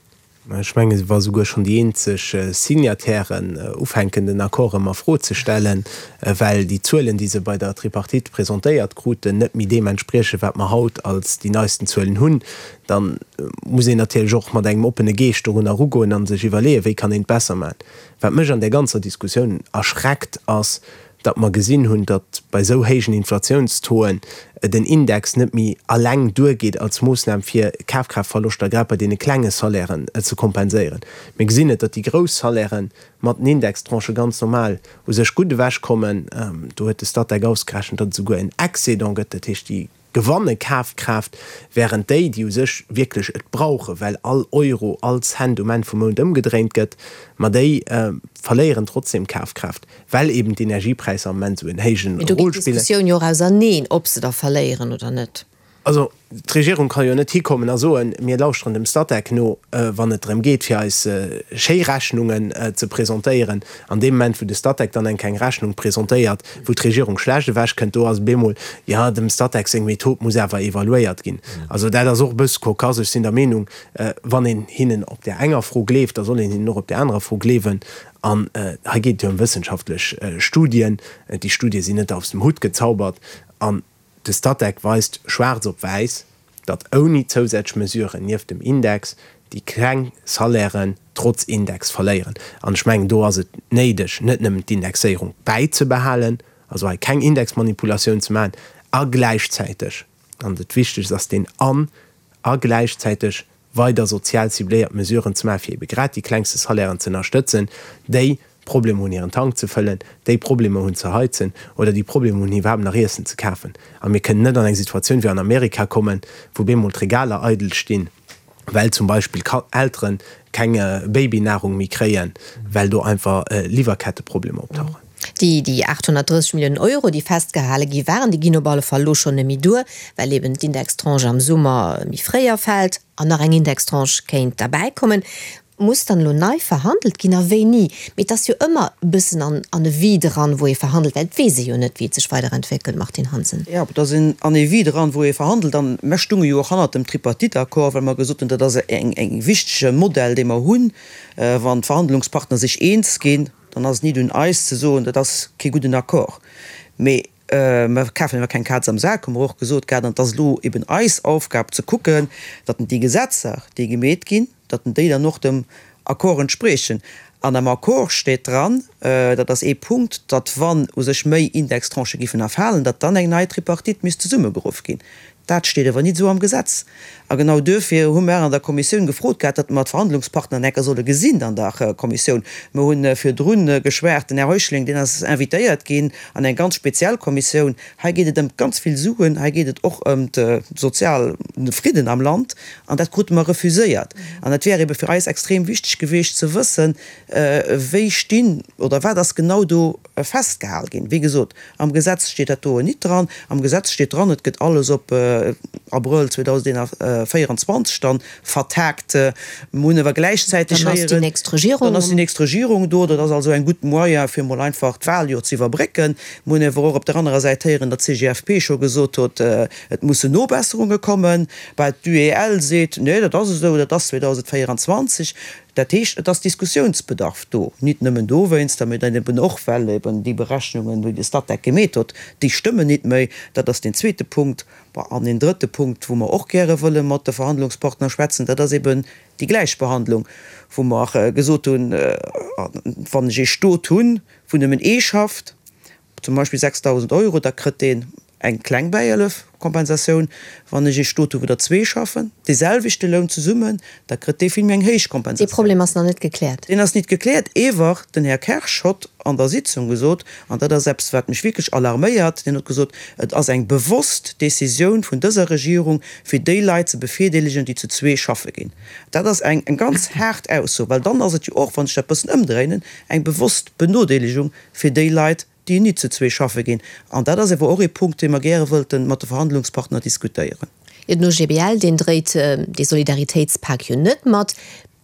D: Ech mengen, wa souguer schonn déi eenzeg Signatairen ufänken, den Accord erëm a Fro ze stellen, well déi Zuelen, déi se bei der Tripartite presentéiert kruten, net méi deem entspriechen, wat mer haut als déi neisten Zuelen hunn, da muss een natierlech och mat engem oppene Geescht dorunner erugoen a sech iwwerleeën, wéi kann een et besser maachen. Wat mech an där ganzer Diskussioun erschreckt, ass, datt mer gesinn hunn, datt bei esou héijen Inflatiounstauxen den Index net méi alleng duergeet als Moossnam fir Kafkraaftverloschter grad bei deene klenge Salairen ze kompenséieren. Mir gesinn et, datt déi grouss Salairen mat den Indextranchë ganz normal u sech gutt ewechkommen. Do huet de Statec ausgerechent, datt et esouguer en Excédent gëtt, dat heescht déi gewanne Kafkraaft, während déi, déi u sech wierklech et brauchen, well all Euro, all Cent um Enn vum Mount ëmgedréint gëtt, ma déi verléieren trotzdem Kafkraaft, well eben d'Energiepräisser am Moment esou en héijen
C: Mee do geet
D: Rôle spillen.
C: d'Diskussioun jo och auserneen, ob se da verléieren oder net.
D: Also, d'Regierung ka jo net hikommen a soen, mir lauschteren dem Statec no, wann et drëm geet, fir eis schéi Rechnungen ze presentéieren. An deem Moment, wou de Statec dann eng keng Rechnung presentéiert, wou d'Regierung schlecht ewechkënnt, do ass et bemol, jo, dem Statec seng Method muss awer evaluéiert ginn. Also dat ass och e bësse cocasse. Ech sinn der Meenung, wann een hinnen op där enger Fro gleeft, da soll een hinnen och op där anerer Fro gleewen. An hei geet et jo ëm wëssenschaftlech Studien. Déi Studie sinn net aus dem Hutt gezaubert. An De Statec weist schwaarz op wäiss, datt ouni zousätzlech Mesuren nieft dem Index déi kleng Salairen trotz Index verléieren. An ech mengen, do ass et néideg, net nëmmen d'Indexéierung bäizebehalen, also hei keng Indexmanipulatioun ze maachen, a gläichzäiteg, an dat Wichtegst ass deen an, a gläichzäiteg weider sozial cibléiert Mesuren ze maachen, fir ebe grad déi klengste Salairen ze ënnerstëtzen, déi Problemer hunn hiren Tank ze fëllen, déi Problemer hunn ze heizen oder déi Problemer hunn iwwerhaapt nach Iessen ze kafen. A mir kënnen net an eng Situatioun wéi an Amerika kommen, wou bemol d'Regaler eidel stinn, well zum Beispill Eltere keng Babynahrung méi kréien, well do einfach Liwwerketteproblemer optauchen.
C: Déi déi 830 Milliounen Euro, déi festgehale gi waren, déi ginn op alle Fall elo schonn net méi duer, well eben d'Indextranche am Summer méi fréi erfält an nach eng Indextranche kéint derbäikommen. Muss dann elo nei verhandelt ginn a wéini? Mee et ass jo ëmmer e bëssen an an e Vide eran, wou ee verhandelt, well et weess ee jo net, wéi et sech weiderentwéckelt, Martine Hansen.
F: Jo, et ass en an e Vide eran, wou ee verhandelt. An mer stunge jo och hannert dem Tripartite-Accord, well mer gesot hunn, dat ass eng eng wichtege Modell, dee mer hunn, wann d'Verhandlungspartner sech eens ginn. Dann ass et nit un eis ze soen, dat ass kee gudden Accord. Mee mer kafen awer keng Kaz am Sak, hu mer och gesot gehat. An et ass elo eben eis Aufgab ze kucken, datt déi Gesetzer, déi gemeet ginn, datt déi dann och dem Accord entspriechen. An am Accord steet dran, dat ass ee Punkt, datt wann u sech méi Indextranchë giffen erfalen, datt dann eng nei Tripartite misst zesummegeruff ginn. Dat steet awer nit esou am Gesetz. A genau duerfir hu mer an der Kommissioun gefrot gehat, datt mer d'Verhandlungspartner enker solle gesinn an der Kommissioun. Mer hu virdru geschwat, den Här Heuschling, deen ass invitéiert ginn an eng ganz speziell Kommissioun. Hei geet et ëm ganz vill Suen, hei geet et och ëm de soziale Fridden am Land, an dat krute mer refuséiert. An et wär ebe fir eis extrem wichteg gewiescht ze wëssen, wéi stinn oder wat ass genau do festgehal ginn. Wéi gesot, Am Gesetz steet dat doen nit dran. Am Gesetz steet dran, et gëtt alles op Abrëll 2024 dann vertagt. Mer hunn awer gläichzäiteg
C: héieren. Dann ass déi nächst Regierung.
F: Dann ass déi nächst Regierung do. Dat ass also eng gutt Moyen, fir emol einfach d'Wahljoer ze iwwerbrécken. Mer hunn awer och op der anerer Säit héieren, datt d'CGFP scho gesot huet, et mussen Nobesserunge kommen. Bah, d'UEL seet, nee, dat ass esou, dat ass 2024. Dat heescht, et ass Diskussiounsbedarf do, nit nëmmen dowéinster, mee dann eben och, well eben déi Berechnungen, déi de Statec gemeet huet, déi stëmmen nit méi. Dat ass deen zweete Punkt. Bon, an een drëtte Punkt, wou mer och gäre wëlle mat de Verhandlungspartner schwätzen, dat ass eben déi Gläichbehandlung, wou mer gesot hunn, wann ech ee Stot hunn, wou nëmmen ee schafft, zum Beispill 6.000 Euro, da kritt deen eng kleng Bäihëllef, Kompensatioun. Wann ech ee Stot hu wou der zwee schaffen, dee selwechte Loun zesummen, da kritt dee vill méi eng héich
C: Dee Kompensatioun. Problem ass nach net gekläert.
F: Deen ass nit gekläert. Ewer den Här Kersch hott an der Sitzung gesot, an dat ass eppes wat mech wierklech alarméiert, deen huet gesot, et ass eng bewosst Décisioun vun dëser Regierung fir déi Leit ze bevirdeelegen, déi zu zwee schaffe ginn. Dat ass eng ganz haart Ausso, well dann ass et jo och, wann ech dat bëssen ëmdréinen, eng bewosst Benodeelegung fir déi Leit, déi nit zu zwee schaffe ginn. An dat ass ewer och ee Punkt, dee mer gäre wëllten mat de Verhandlungspartner diskutéieren.
C: Jo, den OGBL, deen dréit dee Solidaritéitspak jo net mat.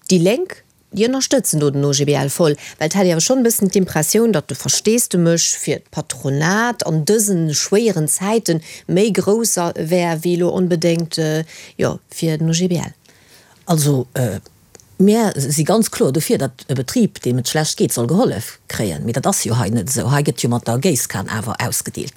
C: Déi Lénk, déi ënnerstëtzen do den OGBL voll. Well et hat ee awer schonn e bëssen d'Impressioun, datt de Versteesdemech fir d'Patronat an dëse schwéieren Zäite méi grouss wär wéi elo onbedéngt, jo, fir den OGBL.
A: Also, Mär si ganz kloer dofir, datt e Betrib, deem et schlecht geet, soll gehollef kréien. Mee dat ass jo hei net esou. Hei gëtt jo mat der Géisskan awer ausgedeelt.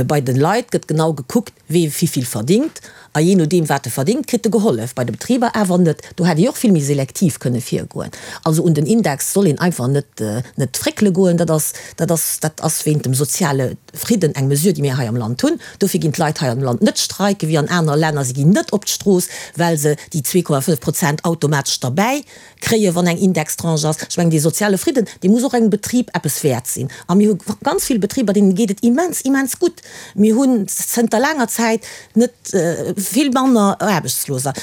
A: Bei de Leit gëtt genau gekuckt, wee wivill verdingt. A jee nodeem, wat e verdingt, kritt e gehollef. Bei de Betriber awer net. Do hätt ee och vill méi selektiv kënne virgoen. Also un den Index soll een einfach net net fréckele goen. Dat ass, dat ass, dat ass wéint dem soziale Fridden eng Mesure, déi mir hei am Land hunn. Dofir ginn d'Leit hei am Land net streiken, wéi an anere Länner. Si ginn net op d'Strooss, well se déi 2,5 Prozent automatesch derbäi kréien, wann eng Indextranche ass. Ech mengen, dee soziale Fridden, dee muss och engem Betrib eppes wäert sinn. A mir hu ganz vill Betriber, deene geet et immens, immens gutt. Mir hunn zënter laanger Zäit net vill manner Aarbechtsloser.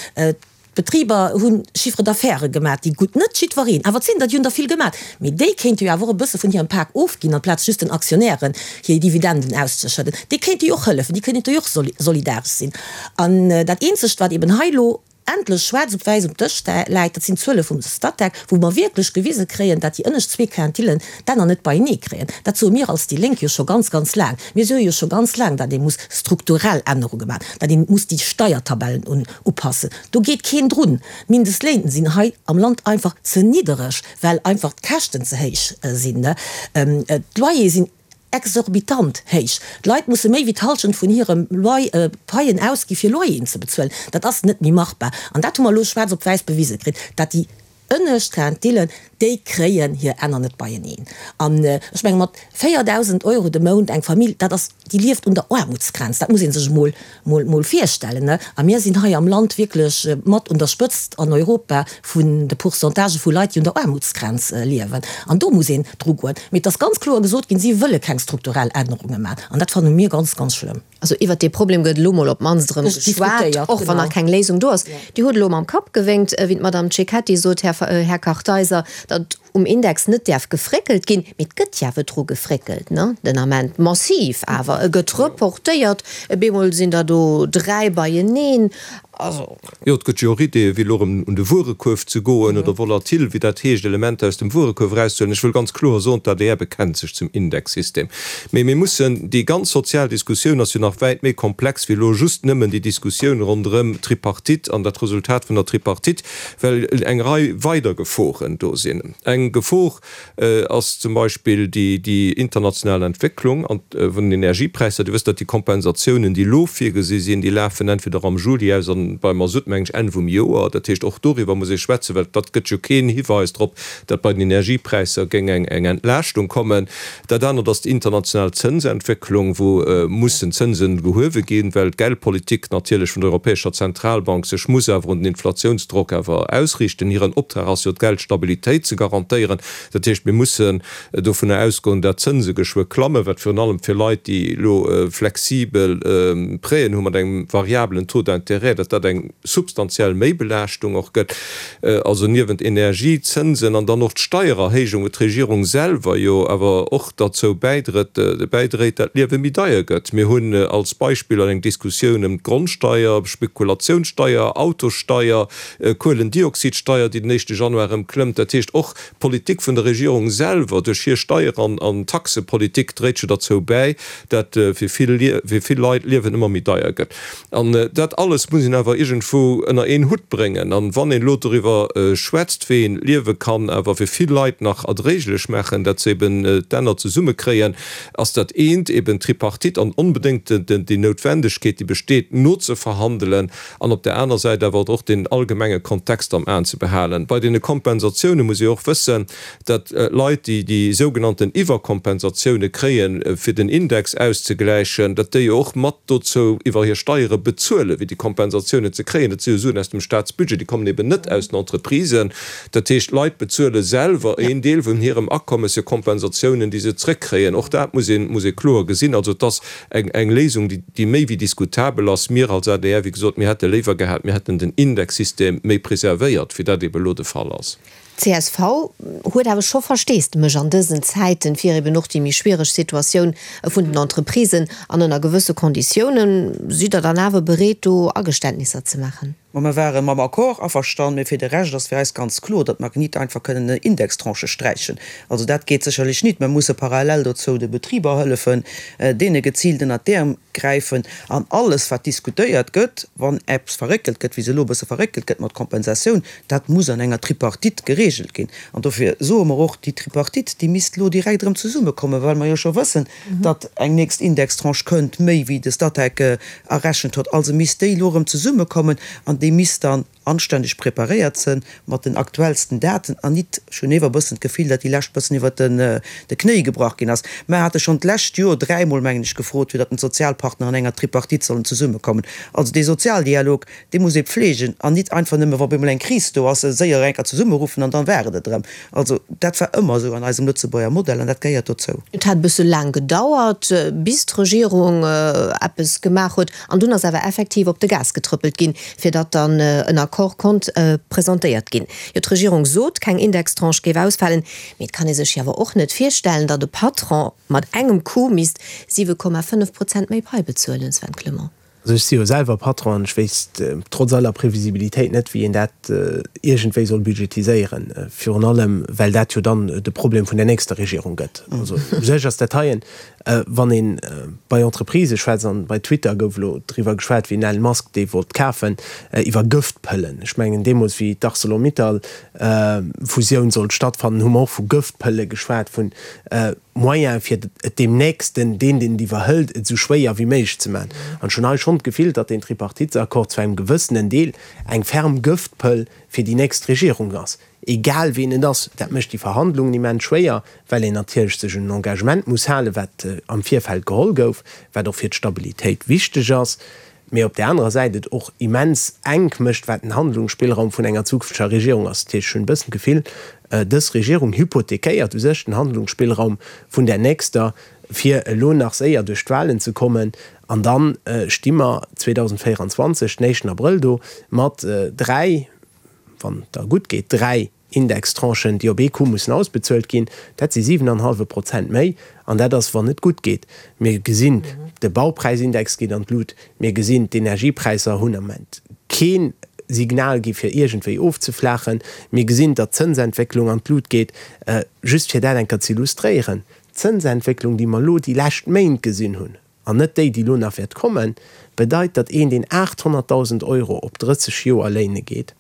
A: D'Betriber hu Chiffre d'affaires gemaat, déi gutt, net jiddwereen, awer et sinn der, déi hunn der vill gemaat, mee déi kéinte jo awer och e bësse vun hirem Pak ofginn, amplaz just den Aktionären hir Dividenden auszeschëdden. Déi kéinte jo och hëllefen, déi kéinte jo och solidaresch sinn. An dat eenzegt, wat eben hei elo endlech schwaarz op wäiss um Dësch läit, dat sinn d'Zuele vum Statec, wou mer wierklech gewise kréien, dat déi ënnescht zwee Quintillen d'Enner net beienee kréien. Dat soe mir als déi Lénk jo scho ganz, ganz laang. Mir soe jo scho ganz laang, datt ee muss strukturell Ännerunge maachen, datt ee muss déi Steiertabellen upassen. Do geet keen drun. D'Mindestléin sinn hei am Land einfach ze niddereg, well einfach d'Käschten ze héich sinn. D'Loyere sinn exorbitant héich. D'Leit musse méi wéi d'Hallschent vun hirem Loyer, Paien ausgi fir Loyeren ze bezuelen. Dat ass net méi machbar. An dat hu mer elo schwaarz op wäiss bewise kritt, dat déi ënnescht Quintillen, déi kréien hir Enner net beieneen. An ech menge mat 4.000 Euro de Mount eng Famill, dat ass, déi lieft un der Aarmutsgrenz. Dat muss ee sech emol, mol, mol virstellen. A mir sinn hei am Land wierklech mat un der Spëtzt an Europa vun de Pourcentagë vu Leit, déi un der Aarmutsgrenz liewen. An do muss een drugoen. Mee et ass ganz kloer gesot ginn, si wëlle keng strukturell Ännerunge maachen. An dat fanne mir ganz, ganz schlëmm.
C: Also iwwert dee Problem gëtt elo mol op d'mannst erëm geschwat, och wann nach keng Léisung do ass. Dir hutt elo mam Kapp gewénkt, wéi d'Madame Cecchetti sot, Här Kartheiser, datt um Index net däerf gefréckelt ginn. Mee et gëtt jo awer dru gefréckelt, ne, den Ament, massiv awer. E gëtt reportéiert, e bemol sinn der do 3 beieneen.
E: Also. Jo, et gëtt jo och Ideeën, wéi elo erëm un de Wuerekuerf ze goen oder volatil, wéi dat heescht, Elementer aus dem Wuerekuerf erauszehuelen. Ech wëll ganz kloer soen, d'ADR bekennt sech zum Indexsystem. Mee mir mussen, déi ganz sozial Diskussioun ass jo nach wäit méi komplex wéi elo just nëmmen déi Diskussioun ronderëm d'Tripartite an dat Resultat vun der Tripartite, well eng Rei weider Geforen do sinn. Eng Gefor ass zum Beispill déi international Entwécklung vun den Energiepräisser. Dir wësst, datt déi Kompensatiounen, déi elo virgesi sinn, déi lafen entweder am Juli aus an. beim Masutt, mengen ech, Enn vum Joer. Dat heescht, och doriwwer muss ee schwätzen, well dat gëtt jo keen Hiweis drop, datt bei den Energiepräisser géing eng Entlaaschtung kommen. Dat anert ass déi international Zënsentwécklung, wou mussen Zënsen gehuewe ginn, well d'Geldpolitik natierlech vun der Europäescher Zentralbank sech muss awer un den Inflatiounsdrock awer ausriichten. Hiren Optrag ass jo d'Geldstabilitéit ze garantéieren. Dat heescht, mir mussen dovunner ausgoen, dat d'Zënse geschwë klammen, wat virun allem fir Leit, déi elo flexibel Prêten hu mat engem variabelen Taux d'intérêt, datt dat eng substantiell Méibelaaschtung och gëtt. Also niewent Energie, Zënsen an dann och d'Steiererhéijung, wou d'Regierung selwer jo awer och derzou bäidrët, bäidréit, dat d'Liewe méi deier gëtt. Mir hunn als Beispiller eng Diskussioun ëm d'Grondsteier, Spekulatiounssteier, Autossteier, Kuelendioxidsteier, déi den éischte Januar erëm klëmmt. Dat heescht, och d'Politik vun der Regierung selwer duerch hir Steier an Taxepolitik dréit jo derzou bäi, dat fir vill fir vill Leit d'Liewen ëmmer méi deier gëtt. An dat alles muss een awer iergendwou ënner een Hutt bréngen. An wann een elo doriwwer schwätzt, wéi een d'Liewe kann awer fir vill Leit nach erdréiglech maachen, dat se eben d'Enner zesummekréien, ass dat eent eben d'Tripartite an onbedéngt déi Noutwendegkeet, déi besteet, nozeverhandelen an op där aner Säit awer och den allgemenge Kontext am Aen ze behalen. Bei deene Kompensatioune muss ee och wëssen, datt Leit, déi déi sougenannten Iwwerkompensatioune kréien, fir den Index auszegläichen, datt déi och mat dozou iwwer hir Steiere bezuelen, fir déi Kompensatiounen ze kréien. Dat si jo Suen aus dem Staatsbudget, déi kommen eben net aus den Entreprisen. Dat heescht, d'Leit bezuele selwer een Deel vun hirem Akommes fir Kompensatiounen, déi se zrëckkréien. Och dat muss een, muss ee kloer gesinn. Also et ass eng, eng Léisung, déi, déi méi wéi diskutabel ass. Mir als adr, wéi gesot, mir hätte léiwer gehat, mir hätten den Indexsystem méi preservéiert, wéi dat eben elo de Fall ass.
C: Csv huet awer scho Versteesdemech an dësen Zäiten fir eben och déi méi schwiereg Situatioun vun den Entreprisen an ënner gewësse Konditiounen. Sidd Der dann awer bereet do Ageständnisser ze maachen?
F: Ma mer ware mam Accord averstanen, mee fir de Rescht ass fir eis ganz kloer, datt mer nit einfach kënnen Indextranchë sträichen. Also dat geet sécherlech nit. Mer musse parallel dozou de Betriber hëllefen, deene geziilt ënnert d'Äerm gräifen. An alles wat diskutéiert gëtt, wann eppes verréckelt gëtt, wéi se elo e bësse verréckelt gëtt mat Kompensatioun, Dat muss an enger Tripartite geregelt ginn. An dofir soe mer och, déi Tripartite, déi misst elo direkt erëm zesummekommen, well mer jo scho wëssen, datt eng nächst Indextranche kënnt, méi wéi de Statec errechent huet. Also misst déi elo erëm zesummekommen an déi misst dann anstänneg preparéiert sënn mat den aktuellsten Daten an nit, ech hunn ewer e bëssen d'Gefill, datt déi lescht bëssen iwwert de Knéi gebrach ginn ass. Mer hate schonn d'lescht Joer dräimol, mengen ech, gefrot, fir datt den d'Sozialpartner an enger Tripartite sollen zesummekommen. Also dee Sozialdialog, Dee muss ee pflegen an nit einfach nëmme, wa op eemol eng Kris do ass, séier eng Kéier zesummeruffen an dann war et et erëm. Also dat war ëmmer esou an eisem Lëtzebuerger Modell an dat gehéiert dozou.
C: Et hat e bësse laang gedauert, bis d'Regierung eppes gemaach huet an dunn ass awer effektiv op de Gas getrëppelt ginn, fir datt dann en Accord konnt presentéiert ginn. Jo, d'Regierung sot, keng Indextranche géif ausfalen, mee et kann ee sech jo awer och net virstellen, datt e Patron mat engem Coup misst 7,5 Prozent méi Pai bezuelen, Sven Clement.
D: Also ech si jo selwer Patron an ech wéisst trotz aller Previsibilitéit net, wéi een dat iergendwéi soll budgetiséieren, virun allem well dat jo dann de Problem vun der nächster Regierung gëtt. Also u sech ass dat heien, wann ee bei Entreprisë schwätzt, an bei Twitter gouf elo driwwer geschwat, wéi den Elon Musk dee wollt kafen, iwwer Gëftpëllen. Ech mengen deemools wéi d'Arcelor-Mittal Fusioun sollt stattfannen, hu mer och vu Gëftpëlle geschwat, vun Moyen fir et deem Nächsten, deen deen et iwwerhëlt, et esou schwéier wéi méiglech ze maachen. An ech hunn hei schonn d'Gefill, datt deen Tripartitesaccord zu engem gewëssenen Deel eng ferm Gëftpëll fir déi nächst Regierung ass, egal ween et ass. Dat mécht déi Verhandlungen immens schwéier, well een natierlech sech un en Engagement muss halen, wat am Virfeld geholl gouf, wat och fir d'Stabilitéit wichteg ass. mee op där anerer Säit et och immens enk mécht, wat den Handlungsspillraum vun enger zukünfteger Regierung ass. Dat heescht, ech hunn e bëssen d'Gefill, dës Regierung hypothekéiert u sech den Handlungsspillraum vun där nächster, fir elo nach séier duerch d'Wahlen ze kommen, an da sti mer 2024, den éischten Abrëll do mat dräi, wann et da gutt geet, dräi Indextranchen, déi op ee Coup mussen ausbezuelt ginn, dat si 7 an hallwe Prozent méi, an dat ass, wann et gutt geet. Mir gesinn, de Baupräisindex geet an d'Lut, mir gesinn, d'Energiepräisser hunn am Moment kee Signal gi fir iergendwéi ofzeflaachen, mir gesinn, datt d'Zënsentwécklung an d'Lut geet. Just fir dat eng Kéier ze illustréieren, D'Zënsentwécklung, déi mer elo déi lescht Méint gesinn hunn, an net déi, déi elo nach wäert kommen, bedeit, datt een, deen 800.000 Euro op 30 Joer léine geet,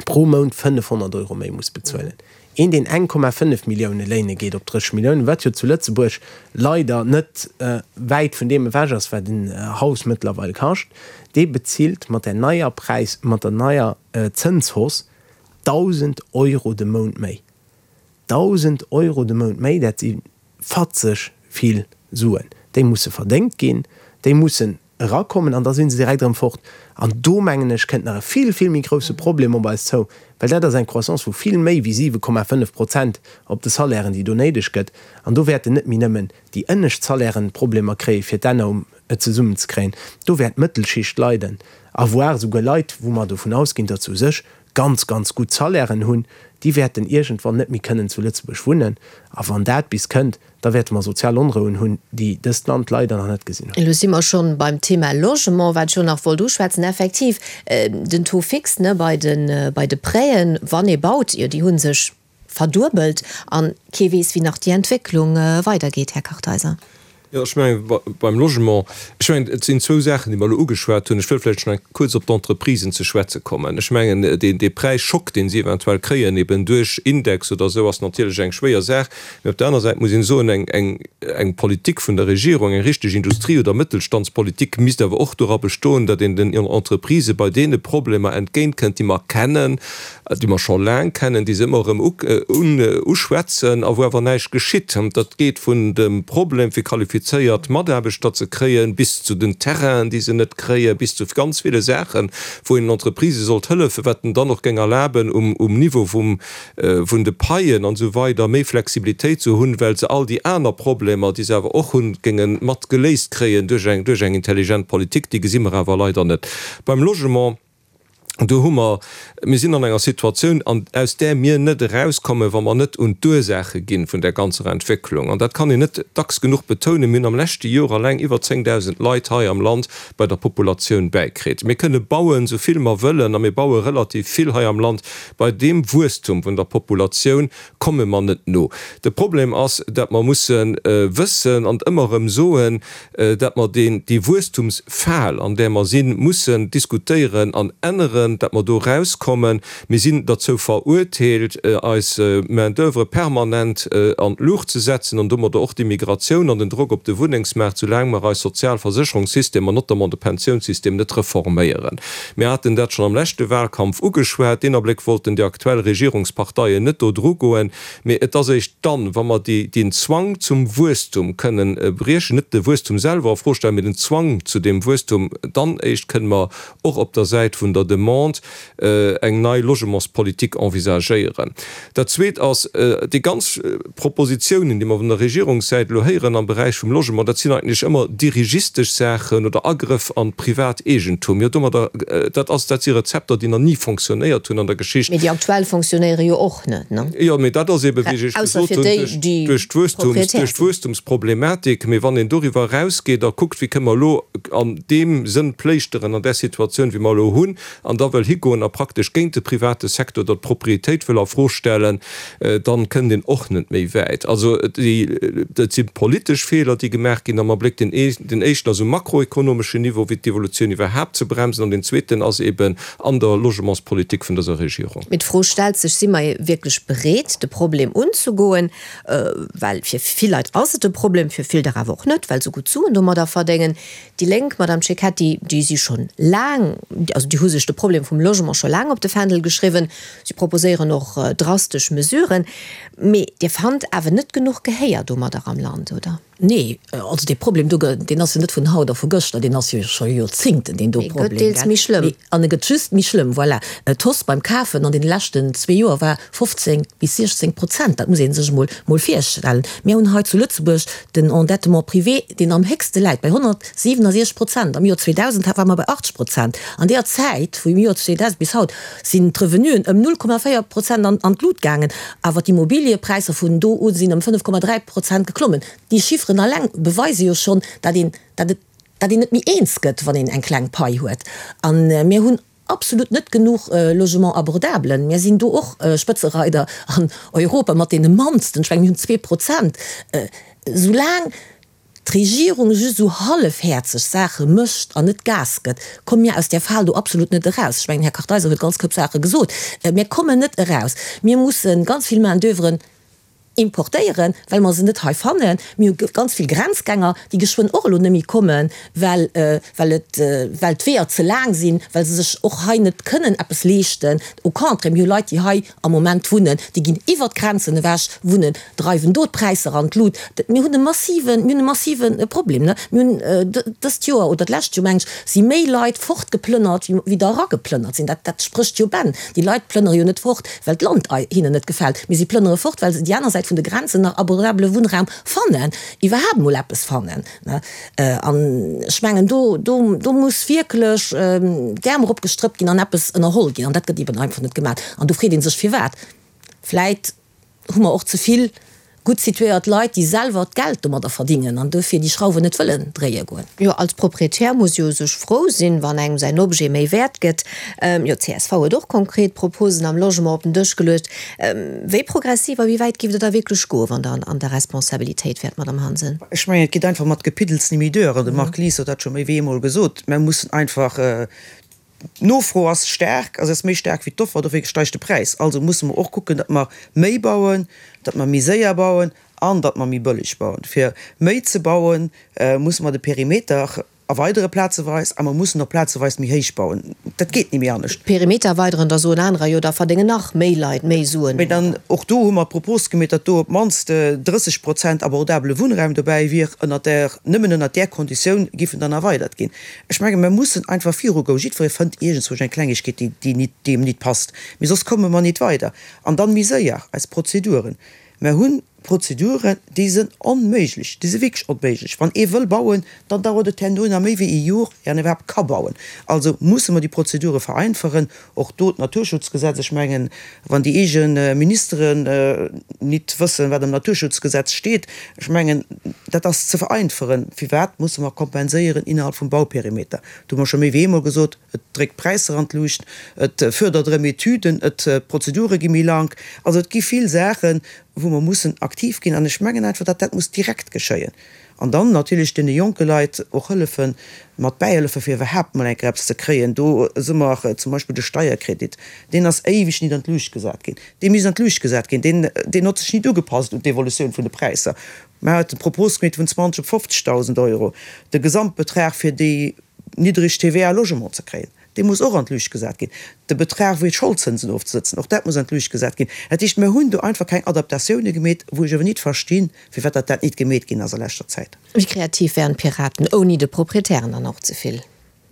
D: pro Mount 500 Euro méi muss bezuelen. Een, deen 1,5 Millioune léine geet op 30 Milliounen, wat jo zu Lëtzebuerg leider net wäit vun deem ewech ass, wat en Haus mëttlerweil kascht, Dee bezilt mat där neier Präis, mat der neier Zënshausse 1.000 Euro de Mount méi. 1.000 Euro de Mount méi, dat si fatzeg vill Suen. Déi musse verdéngt ginn, déi mussen erakommen an da si se direkt erëm fort. An do, mengen ech, kënnt nach e vill, vill méi grousse Problem op eis zou, well dat ass eng Croissance vu vill méi wéi 7,5 Prozent op de Salairen, déi do néideg gëtt. An do wäerten net méi nëmmen déi ënnescht Salairen Problemer kréien, fir d'Enner um et zesummenzekréien. Do wäert d'Mëttelschicht leiden, a voire souguer Leit, wou mer dovun ausginn, datt se u sech ganz, ganz gutt Salairen hunn, déi wäerten iergendwann net méi kënnen zu Lëtzebuerg wunnen. A wann dat bis kënnt, da wäerte mer sozial Onrouen hunn, déi dëst Land leider nach net gesinn huet.
C: Elo si mer schonn beim Thema Logement, wat ech och nach wollt uschwätzen. Effektiv, den Taux fixe, ne, bei de, bei de Prêten, wann ee baut, jo, déi hu sech verduebelt. A kee weess, wéi nach déi Entwécklung weidergeet, Här Kartheiser.
E: Jo, ech mengen, beim Logement, ech mengen, et sinn zwou Saachen, déi mer elo ugeschwat hunn. Ech wëll vläicht nach kuerz op d'Entreprisen ze schwätze kommen. Ech mengen, deen, dee Präisschock, dee si eventuell kréien, eben duerch Index oder esou, ass natierlech eng schwéier Saach. Mee op der aner Säit muss een soen, eng, eng, eng Politik vun der Regierung, eng richteg Industrie oder Mëttelstandspolitik misst awer och dora bestoen, datt een den Entreprisë bei deene Problemer entgéintkënnt, déi mer kennen, déi mer scho laang kennen, déi se ëmmer erëm uschwätzen a wou awer näischt geschitt. Dat geet vun dem Problem fir qualifizéiert Mataarbechter ze kréien, bis zu den Terrainen, déi se net kréien, bis zu ganz ville Saachen, wou een den Entreprisë sollt hëllefen, wat en dann och géing erlaben, um Niveau vun de Paien an esou weider méi Flexibilitéit ze hunn, well se all déi aner Problemer, déi se awer och hunn, géinge mat geléist kréien duerch eng intelligent Politik. Déi gesi mer awer leider net beim Logement. Do hu mer, mir sinn an enger Situatioun, an aus där mir net erauskommen, wa mer net un d'Ursaache gi vun där ganzer Entwécklung. An dat kann een net dacks genuch betounen, Mir hunn am leschte Jor alleng iwwer 10.000 Leit hei am Land bei der Populatioun bäikritt. Mir kënne bauen, esou vill mer wëllen, a mir baue relativ vill hei am Land, bei deem Wuesstum vun der Populatioun komme mer net no. De Problem ass, dat mer musse wëssen an ëmmer erëm soen, dat mer deen, déi Wuesstumsfal, an där mer sinn, mussen diskutéieren an änneren, dat mer do erauskommen. Mir sinn derzou verurteelt, eis Main-d'oeuvre permanent an d'Luucht ze setzen an domadder och d'Immigratioun an den Drock op de Wunnengsmaart, soulaang mer eis Sozialversécherungssystemer, notamment de Pensiounssystem, net reforméieren. Mir haten dat schonn am leschte Wahlkampf ugeschwat. Deen Abléck wollten déi aktuell Regierungsparteien net do drugoen. Mee et ass eréischt dann, wa mer déi, deen Zwang zum Wuesstum kënnen briechen, net de Wuesstum selwer a Fro stellen, mee den Zwang zu deem Wuesstum, dann éischt kënnen mer och op der Säit vun der Demande eng nei Logementspolitik envisagéieren. Dat Zweet ass, déi ganz Propositionen, déi mer vun der Regierungssäit elo héieren am Beräich vum Logement, dat sinn eigentlech ëmmer dirigistesch Saachen oder Agrëff an d'Privateegentum. Jo, domadder, dat ass, dat si Rezepter, déi nach ni fonctionnéiert hunn an der Geschicht.
C: Mee déi aktuell fonctionnéiere jo och net, ne?
E: Jo, mee dat ass eeben, wéi ech Iech gesot hunn, duerch d'Wuesstums, duerch d'Wuesstumsproblematik. Mee wann een doriwwer erausgeet a kuckt, wéi kënne mer elo an deem Sënn pléischteren an där Situatioun, wéi mer elo hunn, an da wëll higoen a praktesch géint de private Secteur oder d'Propriétéit wëll a Fro stellen, dann kënnt een och net méi wäit. Also déi, dat si politesch Feeler, déi gemaach ginn am Abléck. Den éischten ass um makroekonomeschen Niveau, wéi d'Evolutioun iwwerhaapt ze bremsen, an deen zweeten ass eeben an der Logementspolitik vun dëser Regierung.
C: Mee d'Fro stellt sech, Si mer wierklech bereet, de Problem unzegoen? Well fir vill Leit ass et e Problem, fir vill der awer och net, well se gutt Suen domadder verdéngen. Déi Lénk, Madame Cecchetti, déi si schonn laang, also déi hu sech de Problem vum Logement scho laang op de Fändel geschriwwen. Si proposéieren och drastesch Mesuren. Mee Dir fannt awer net genuch Gehéier domadder am Land, oder?
A: Nee, also dee Problem do, deen ass jo net vun haut a vu gëschter, deen ass jo scho Joerzingten, deen do Problem. Mee e gëtt
C: deels méi schlëmm.
A: An e gëtt just méi schlëmm, voilà. D'Hausse beim Kafen an deene leschten zwee Joer war 15 bis 16 Prozent, dat muss ee sech emol mol virstellen. Mir hunn hei zu Lëtzebuerg den Endettement privé, deen am héchste läit, bei 167 Prozent. Am Joer 2000 ware mer bei 80 Prozent. An deeër Zäit, vum Joer 2000 bis haut, sinn d'Revenuen ëm 0,4 Prozent an d'Lut gaangen, awer d'Immobiliëpräisser vun do u sinn ëm 5,3 Prozent geklommen. Déi Chifferen alleng beweise jo schonn, datt een, datt et, datt een net méi eens gëtt, wann een eng kleng Pai huet. A mir hunn absolut net genuch Logements abordables. Mir sinn do och Spëtzereider an Europa mat deene mannsten, ech mengen, mir hunn 2%. Soulaang d'Regierung just esou hallefhäerzeg Saache mécht an net Gas gëtt, komme mir aus där Fal do absolut net eraus. Ech mengen, Här Kartheiser huet ganz Koup Saache gesot. Mir kommen net eraus. Mir musse ganz vill Main-d'oeuvren. importéieren, well mer se net hei fannen. Mir hu ganz vill Grenzgänger, déi geschwënn och elo net méi kommen, well, well et, well d'Weeër ze laang sinn, well se sech och hei net kënnen eppes leeschten. Au contraire, mir hu Leit, déi hei am Moment wunnen, déi ginn iwwert d'Grenzen ewech wunnen, dreiwen do d'Präisser an d'Lut. Mir hunn e massiven, mir hunn e massive Problem, ne? Mir hunn dëst Joer oder d'lescht Joer, meng ech, si méi Leit fortgeplënnert, wéi der erageplënnert sinn. Dat, dat sprécht jo Bänn. Déi Leit plënnere jo net fort, well d'Land hinnen net gefält, mee si plënnere fort, well se déi aner Säit vun de Grenzen nach abordabele Wunnraum fannen, iwwerhaapt emol eppes fannen, ne? An ech mengen, do, do, do muss wierklech d'Äerm eropgestrëppt ginn an eppes ënnerholl ginn. An dat gëtt eben einfach net gemaach. An do freet ee sech, firwat. Vläit hu mer och ze vill gutt situéiert Leit, déi selwer d'Geld domadder verdingen an duerfir déi Schrauwen net wëllen dréie goen.
C: Jo, als Proprietär muss jo sech frou sinn, wann engem säin Objet méi wäert gëtt. Jo, csv huet och konkret Proposen am Logement op den Dësch geluecht. Wéi progressiv a wéi wäit géift Der da wierklech goen, wann Der an der Responsabilitéit wäert, Madamm Hansen?
F: Ech mengen, et geet einfach mat Gepiddels ni méi duer. An de Marc Lies huet dat scho méi wéi eemol gesot. Mer mussen einfach D'Nofro ass staark, also ass méi staark wéi d'Offer, dofir steigt de Präis. Also musse mer och kucken, datt mer méi bauen, datt mer méi séier bauen an datt mer méi bëlleg bauen. Fir méi ze bauen, musse mer de Perimeter erweidere plazeweis a mer mussen och plazeweis méi héich bauen. Dat geet ni méi anescht.
C: Perimeter erweideren, da soen anerer, jo da verdéngen nach méi Leit méi Suen.
F: Mee dann, och do hu mer d'Propos gemeet, datt do op d'mannst 30 Prozent abordabele Wunnraum dobäi wier, ënnert där, nëmmen ënnert där Konditioun giff en dann erweidert ginn. Ech menge mer mussen einfach virugoen. Jiddweree fënnt iergendzwousch eng Klengegkeet, déi déi déi em nit passt. Mee soss komme mer nit weider. An dann méi séier eis Prozeduren. Mer hunn Prozeduren, déi sënn onméiglech, déi si wierklech onméiglech. Wann ee wëll bauen, dann dauert et herno nach méi wéi ee Jor, ier en iwwerhaapt ka bauen. Also musse mer déi Prozedure vereinfachen. Och do d'Naturschutzgesetz, ech mengen, wann déi eege Ministeren nit wëssen, wat am Naturschutzgesetz steet, ech mengen, dat ass ze vereinferen. Firwat musse mer kompenséieren innerhalb vum Bauperimeter? Dat hu mer scho méi wéi eemol gesot. Et dréckt d'Präisser an d'Luucht, et fördert erëm Etüden, et d'Prozedure gi méi lank. Also et gi vill Saachen, wou mer mussen aktiv ginn. An ech mengen einfach, datt dat muss direkt geschéien. An dann natierlech deene jonke Leit och hëllefen, mat bäihëllefen, fir iwwerhaapt mol eng Kéier eppes ze kréien. Do si mer zum Beispill de Steierkredit, deen ass éiweg nit an d'Luucht gesat ginn. Dee misst an d'Luucht gesat ginn. Deen, deen hott sech nit ugepasst un d'Evolutioun vun de Präisser. Mer haten d'Propos gemeet vun 20 op 50.000 Euro, de Gesamtbetrag fir déi niddreg TVA Logement ze kréien. Dee muss och an d'Luucht gesat ginn. De Betrag fir d'Scholdzënsen ofzesëtzen, och dat muss an d'Luucht gesat ginn. Dat heescht, mir hunn do einfach keng Adaptatioune gemeet, wou ech awer nit verstinn, firwat datt dat nit gemeet ginn ass a leschter Zäit.
C: Wéi kreativ wären d'Piraten, ouni de Proprietären dann och ze vill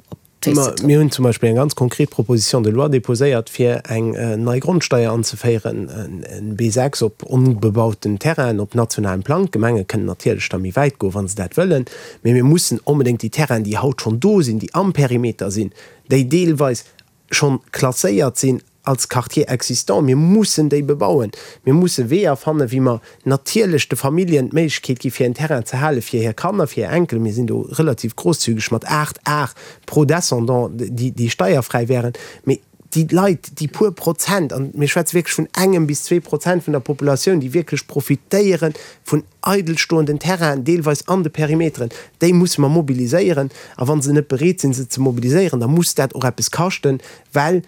D: op d'Féiss ze trëppelen? Mir hunn zum Beispill eng ganz konkret Proposition de loi déposéiert, fir eng nei Grondsteier anzeféieren, en B6 op onbebauten Terrainen op nationalem Plang. D'Gemenge kënnen natierlech da méi wäit goen, wa se dat wëllen. Mee mir mussen onbedéngt déi Terrainen, déi haut schonn do sinn, déi am Perimeter sinn, déi deelweis schonn klasséiert sinn als Quartier existant, mir mussen déi bebauen. Mir musse Weeër fannen, wéi mer natierlech de Familljen d'Méiglechkeet gi fir en Terrain ze hale fir hir Kanner, fir hir Enkelen. Mir sinn do relativ grosszügeg mat 8 Ar pro Descendant, déi steierfräi wären. Mee déi Leit, déi puer Prozent, an mir schwätze wierklech vun engem bis 2% vun der Populatioun, déi wierklech profitéiere vun eidelstoenden Terrainen, deelweis an de Perimeteren, déi musse mer mobiliséieren. A wa se net bereet sinn, se ze mobiliséieren, da muss dat och eppes kaschten, well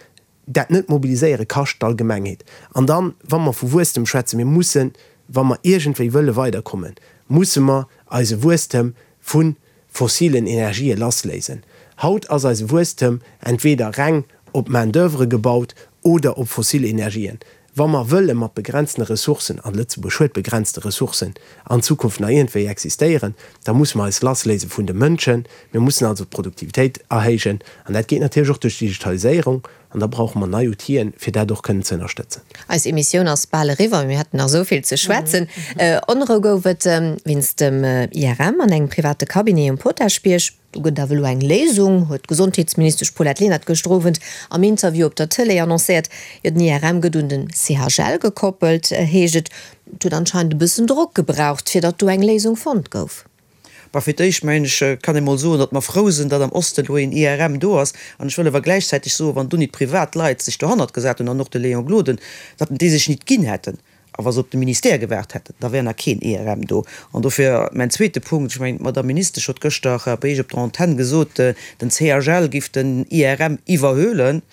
D: dat Net-Mobiliséiere kascht d'Allgemengheet. An dann, wa mer vu Wuesstem schwätzen, mir mussen, wa mer iergendwéi wëlle weiderkommen, musse mer eise Wuesstem vu fossilen Energië lassléisen. Haut ass eise Wuesstem entweder reng op Main d'oeuvre gebaut oder op fossil Energien. Wa mer wëlle mat begrenztene Ressourcen, an Lëtzebuerg huet begrenzte Ressourcen, an Zukunft nach iergendwéi existéieren, da musse mer eis lassléise vun de Mënschen. Mir mussen also d'Produktivitéit erhéijen, an dat geet natierlech och duerch d'Digitaliséierung. An da brauche mer nei Outill'en, fir dat och kënnen ze ënnerstëtzen.
C: Eis Emissioun ass bal eriwwer, mee mir hätten nach esou vill ze schwätzen. Onrou gouf et wéinst dem IRM an engem private Cabinet um Potaschbierg. Do gëtt et awer elo eng Léisung, huet d'Gesondheetsministesch Paulette Lenert gëschter Owend am Interview op der Tëlee annoncéiert. Jo, den IRM gëtt un den CHL gekoppelt, heescht et. Et huet anscheinend e bëssen Drock gebraucht, fir datt do eng Léisung fonnt gouf.
F: Bah, fir d'éischt, mengen ech, kann ee mol soen, datt mer frou sinn, datt am Osten elo een IRM do ass. An ech wëll awer gläichzäiteg soen, wann do nit privat Leit sech dohannert gesat hunn, an och de Léon Gloden, datt déi sech nit ginn hätten, a wa se op de Ministère gewaart hätten, da wär nach keen IRM do. An dofir mäin zweete Punkt, ech mengen, d'Madame Ministesch huet gëschter bei Iech op der Antenn gesot, den CHL giff den IRM iwwerhuelen.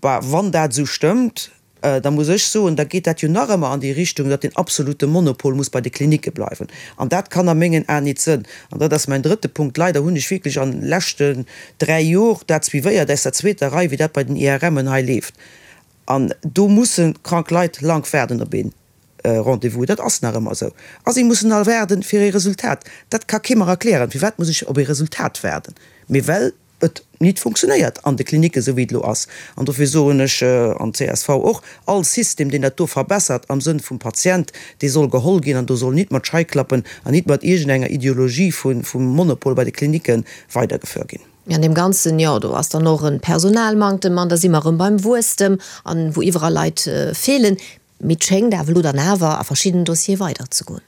F: Bah, wann dat esou stëmmt. Da muss ech soen, da geet dat jo nach ëmmer an déi Richtung, datt deen absolute Monopol muss bei de Klinicke bleiwen. An dat kann a mengen Aen nit sënn. An dat ass mäin drëtte Punkt. Leider hunn ech wierklech an de leschten 3 Jor dat suivéiert aus der zweeter Rei, wéi dat bei den IRMen hei leeft. An do musse krank Leit lank waarden op ee Rendez-vous. Dat ass nach ëmmer esou. A si mussen all waarden fir ee Resultat. Dat ka kee mer erklären. Firwat muss ech op ee Resultat waarden? Mee well et nit funktionéiert an de Klinicken, esou wéi et elo ass. An dofir soen ech, an d'CSV och, all System, deen dat do verbessert am Sënn vum Patient, dee soll geholl ginn an do soll nit mat Scheiklappen an nit mat iergendenger Ideologie vum Monopol bei de Klinicken weidergefuer ginn.
C: An deem Ganzen, jo, do ass dann och e Personalmanktem an da si mer erëm beim Wuesstem an wou iwwerall Leit feelen. Mee et schéngt awer elo dann awer a verschiddenen Dossiere weiderzegoen.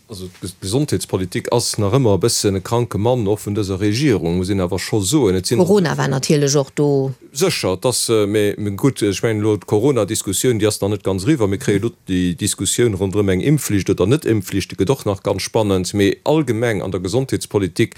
E: Also d'Gesondheetspolitik ass nach ëmmer e bëssen e kranke Mann, och vun dëser Regierung, muss een awer scho soen. Et
C: sinn. Corona war natierlech och do.
E: Sécher, et ass, mee gutt, ech mengen elo d'Corona-Diskussioun, déi ass nach net ganz eriwwer. Mir kréie elo déi Diskussioun ronderëm eng Impfflicht oder Net-Impfflicht, déi gëtt och nach ganz spannend. Mee allgemeng an der Gesondheetspolitik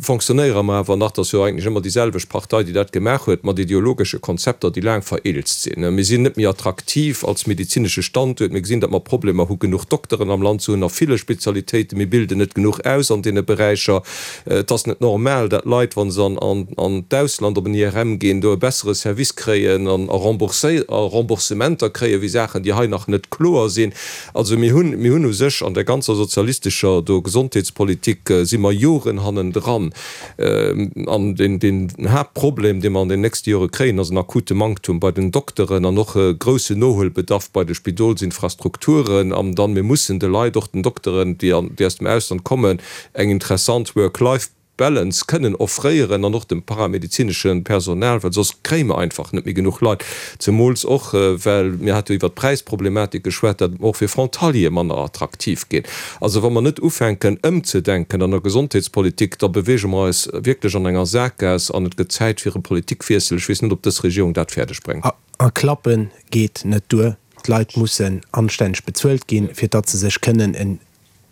E: Fonctionnéiere mer awer nach, et ass jo eigentlech ëmmer déi selwecht Partei, déi dat gemaach huet, mat ideologesche Konzepter, déi laang vereelzt sinn. Mir sinn net méi attraktiv als medezinesche Standuert. Mir gesinn, datt mer Problemer hu genuch Dokteren am Land ze hunn a ville Spezialitéiten. Mir bilden net genuch aus an deene Beräicher. Et ass net normal, datt Leit, wa se an d'Ausland op en IRM ginn, do e bessere Service kréien a Remboursementer kréien, wéi Saachen, déi hei nach net kloer sinn. Also mir hunn, mir hunn u sech an der ganzer sozialistescher do Gesondheetspolitik si mer Joren hannendran. An deen, deen Haaptproblem, dee mer an den nächste Jore kréien, ass en akute Manktum bei den Dokteren an och e groussen Nohuelbedarf bei de Spidolsinfrastrukturen. An dann, mir mussen de Leit, och den Dokteren, déi an, déi aus dem Ausland kommen, eng interessant Work-Life. Balance kënnen offréieren an och dem paramedezinesche Personal, well soss kréie mer einfach net méi genuch Leit, zemools och well, mir hate jo iwwert d'Präisproblematik geschwat, dat och fir Frontaliere manner attraktiv ginn. Also wa mer net ufänken ëmzedenken an der Gesondheetspolitik, da beweege mer eis wierklech an enger Sakgaass an et gëtt Zäit fir e Politikwiessel. Ech weess net, ob dës Regierung dat fäerdeg bréngt.
D: A klappe geet net duer. D'Leit mussen anstänneg bezuelt ginn, fir datt se sech kënnen en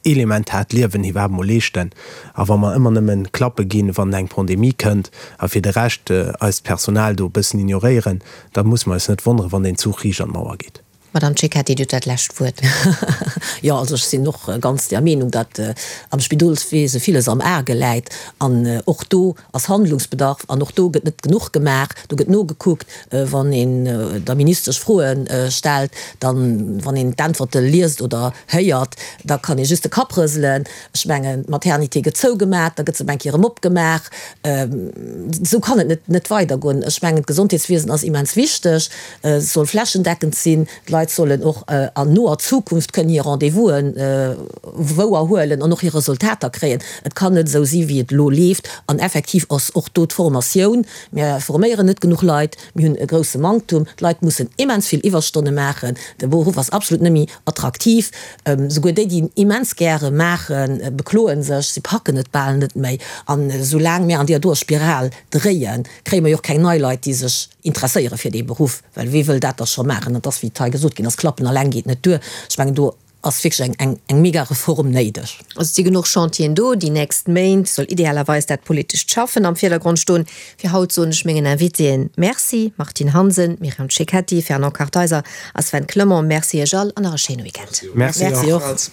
D: elementaart Liewen iwwerhaapt mol leeschten. A wa mer ëmmer nëmmen Klappe ginn, wann eng Pandemie kënnt, a fir de Rescht eist Personal do e bëssen ignoréieren, da musse mer eis net wonneren, wann deen Zuch riicht an d'Mauer geet.
C: Madame Cecchetti, Dir hutt dat lescht Wuert.
A: Jo, also ech sinn och ganz der Meenung, datt am Spidolswese villes am Arge läit. An och do ass Handlungsbedarf an och do gëtt net genuch gemaach. Do gëtt nogekuckt, wann een der Ministesch Froe stellt, dann, wann een d'Äntwerte liest oder héiert, da kann ee just de Kapp rëselen. Ech mengen, d'Maternité gëtt zougemat, da gëtt se op eng Kéier erëm opgemaach. Esou kann et net net weidergoen. Ech mengen, d'Gesondheetswiesen ass immens wichteg, et soll flächendeckend sinn. D'Leit sollen och an noer Zukunft kënnen hir Rendez-vous'en wouer huelen an och hir Resultater kréien. Et kann net esou si wéi et elo leeft. An effektiv ass och do d'Formatioun, mir forméieren net genuch Leit, mir hunn e grousse Manktum, d'Leit mussen immens vill Iwwerstonne maachen, de Beruff ass absolut net méi attraktiv. Souguer déi, déi en immens gäre maachen, bekloe sech, si packen et bal net méi. An esoulaang mir an deeër doer Spiral dréien, kréie mer jo och keng nei Leit, déi sech interesséiere fir dee Beruff. Well wee wëll dat da scho maachen? Et ass, wéi et hei gesot ginn ass, Klappen alleng geet net duer. Ech mengen, do ass wierklech eng, eng mega Reform néideg.
C: Also et si genuch Chantieren do. Déi nächst Méint soll idealerweis dat politescht Schaffen am Virdergrond stoen. Fir haut soen ech mengen Invitéen Merci, Martine Hansen, Myriam Cecchetti, Fernand Kartheiser a Sven Clement. Merci Iech all an nach e schéine Weekend.
D: Merci och.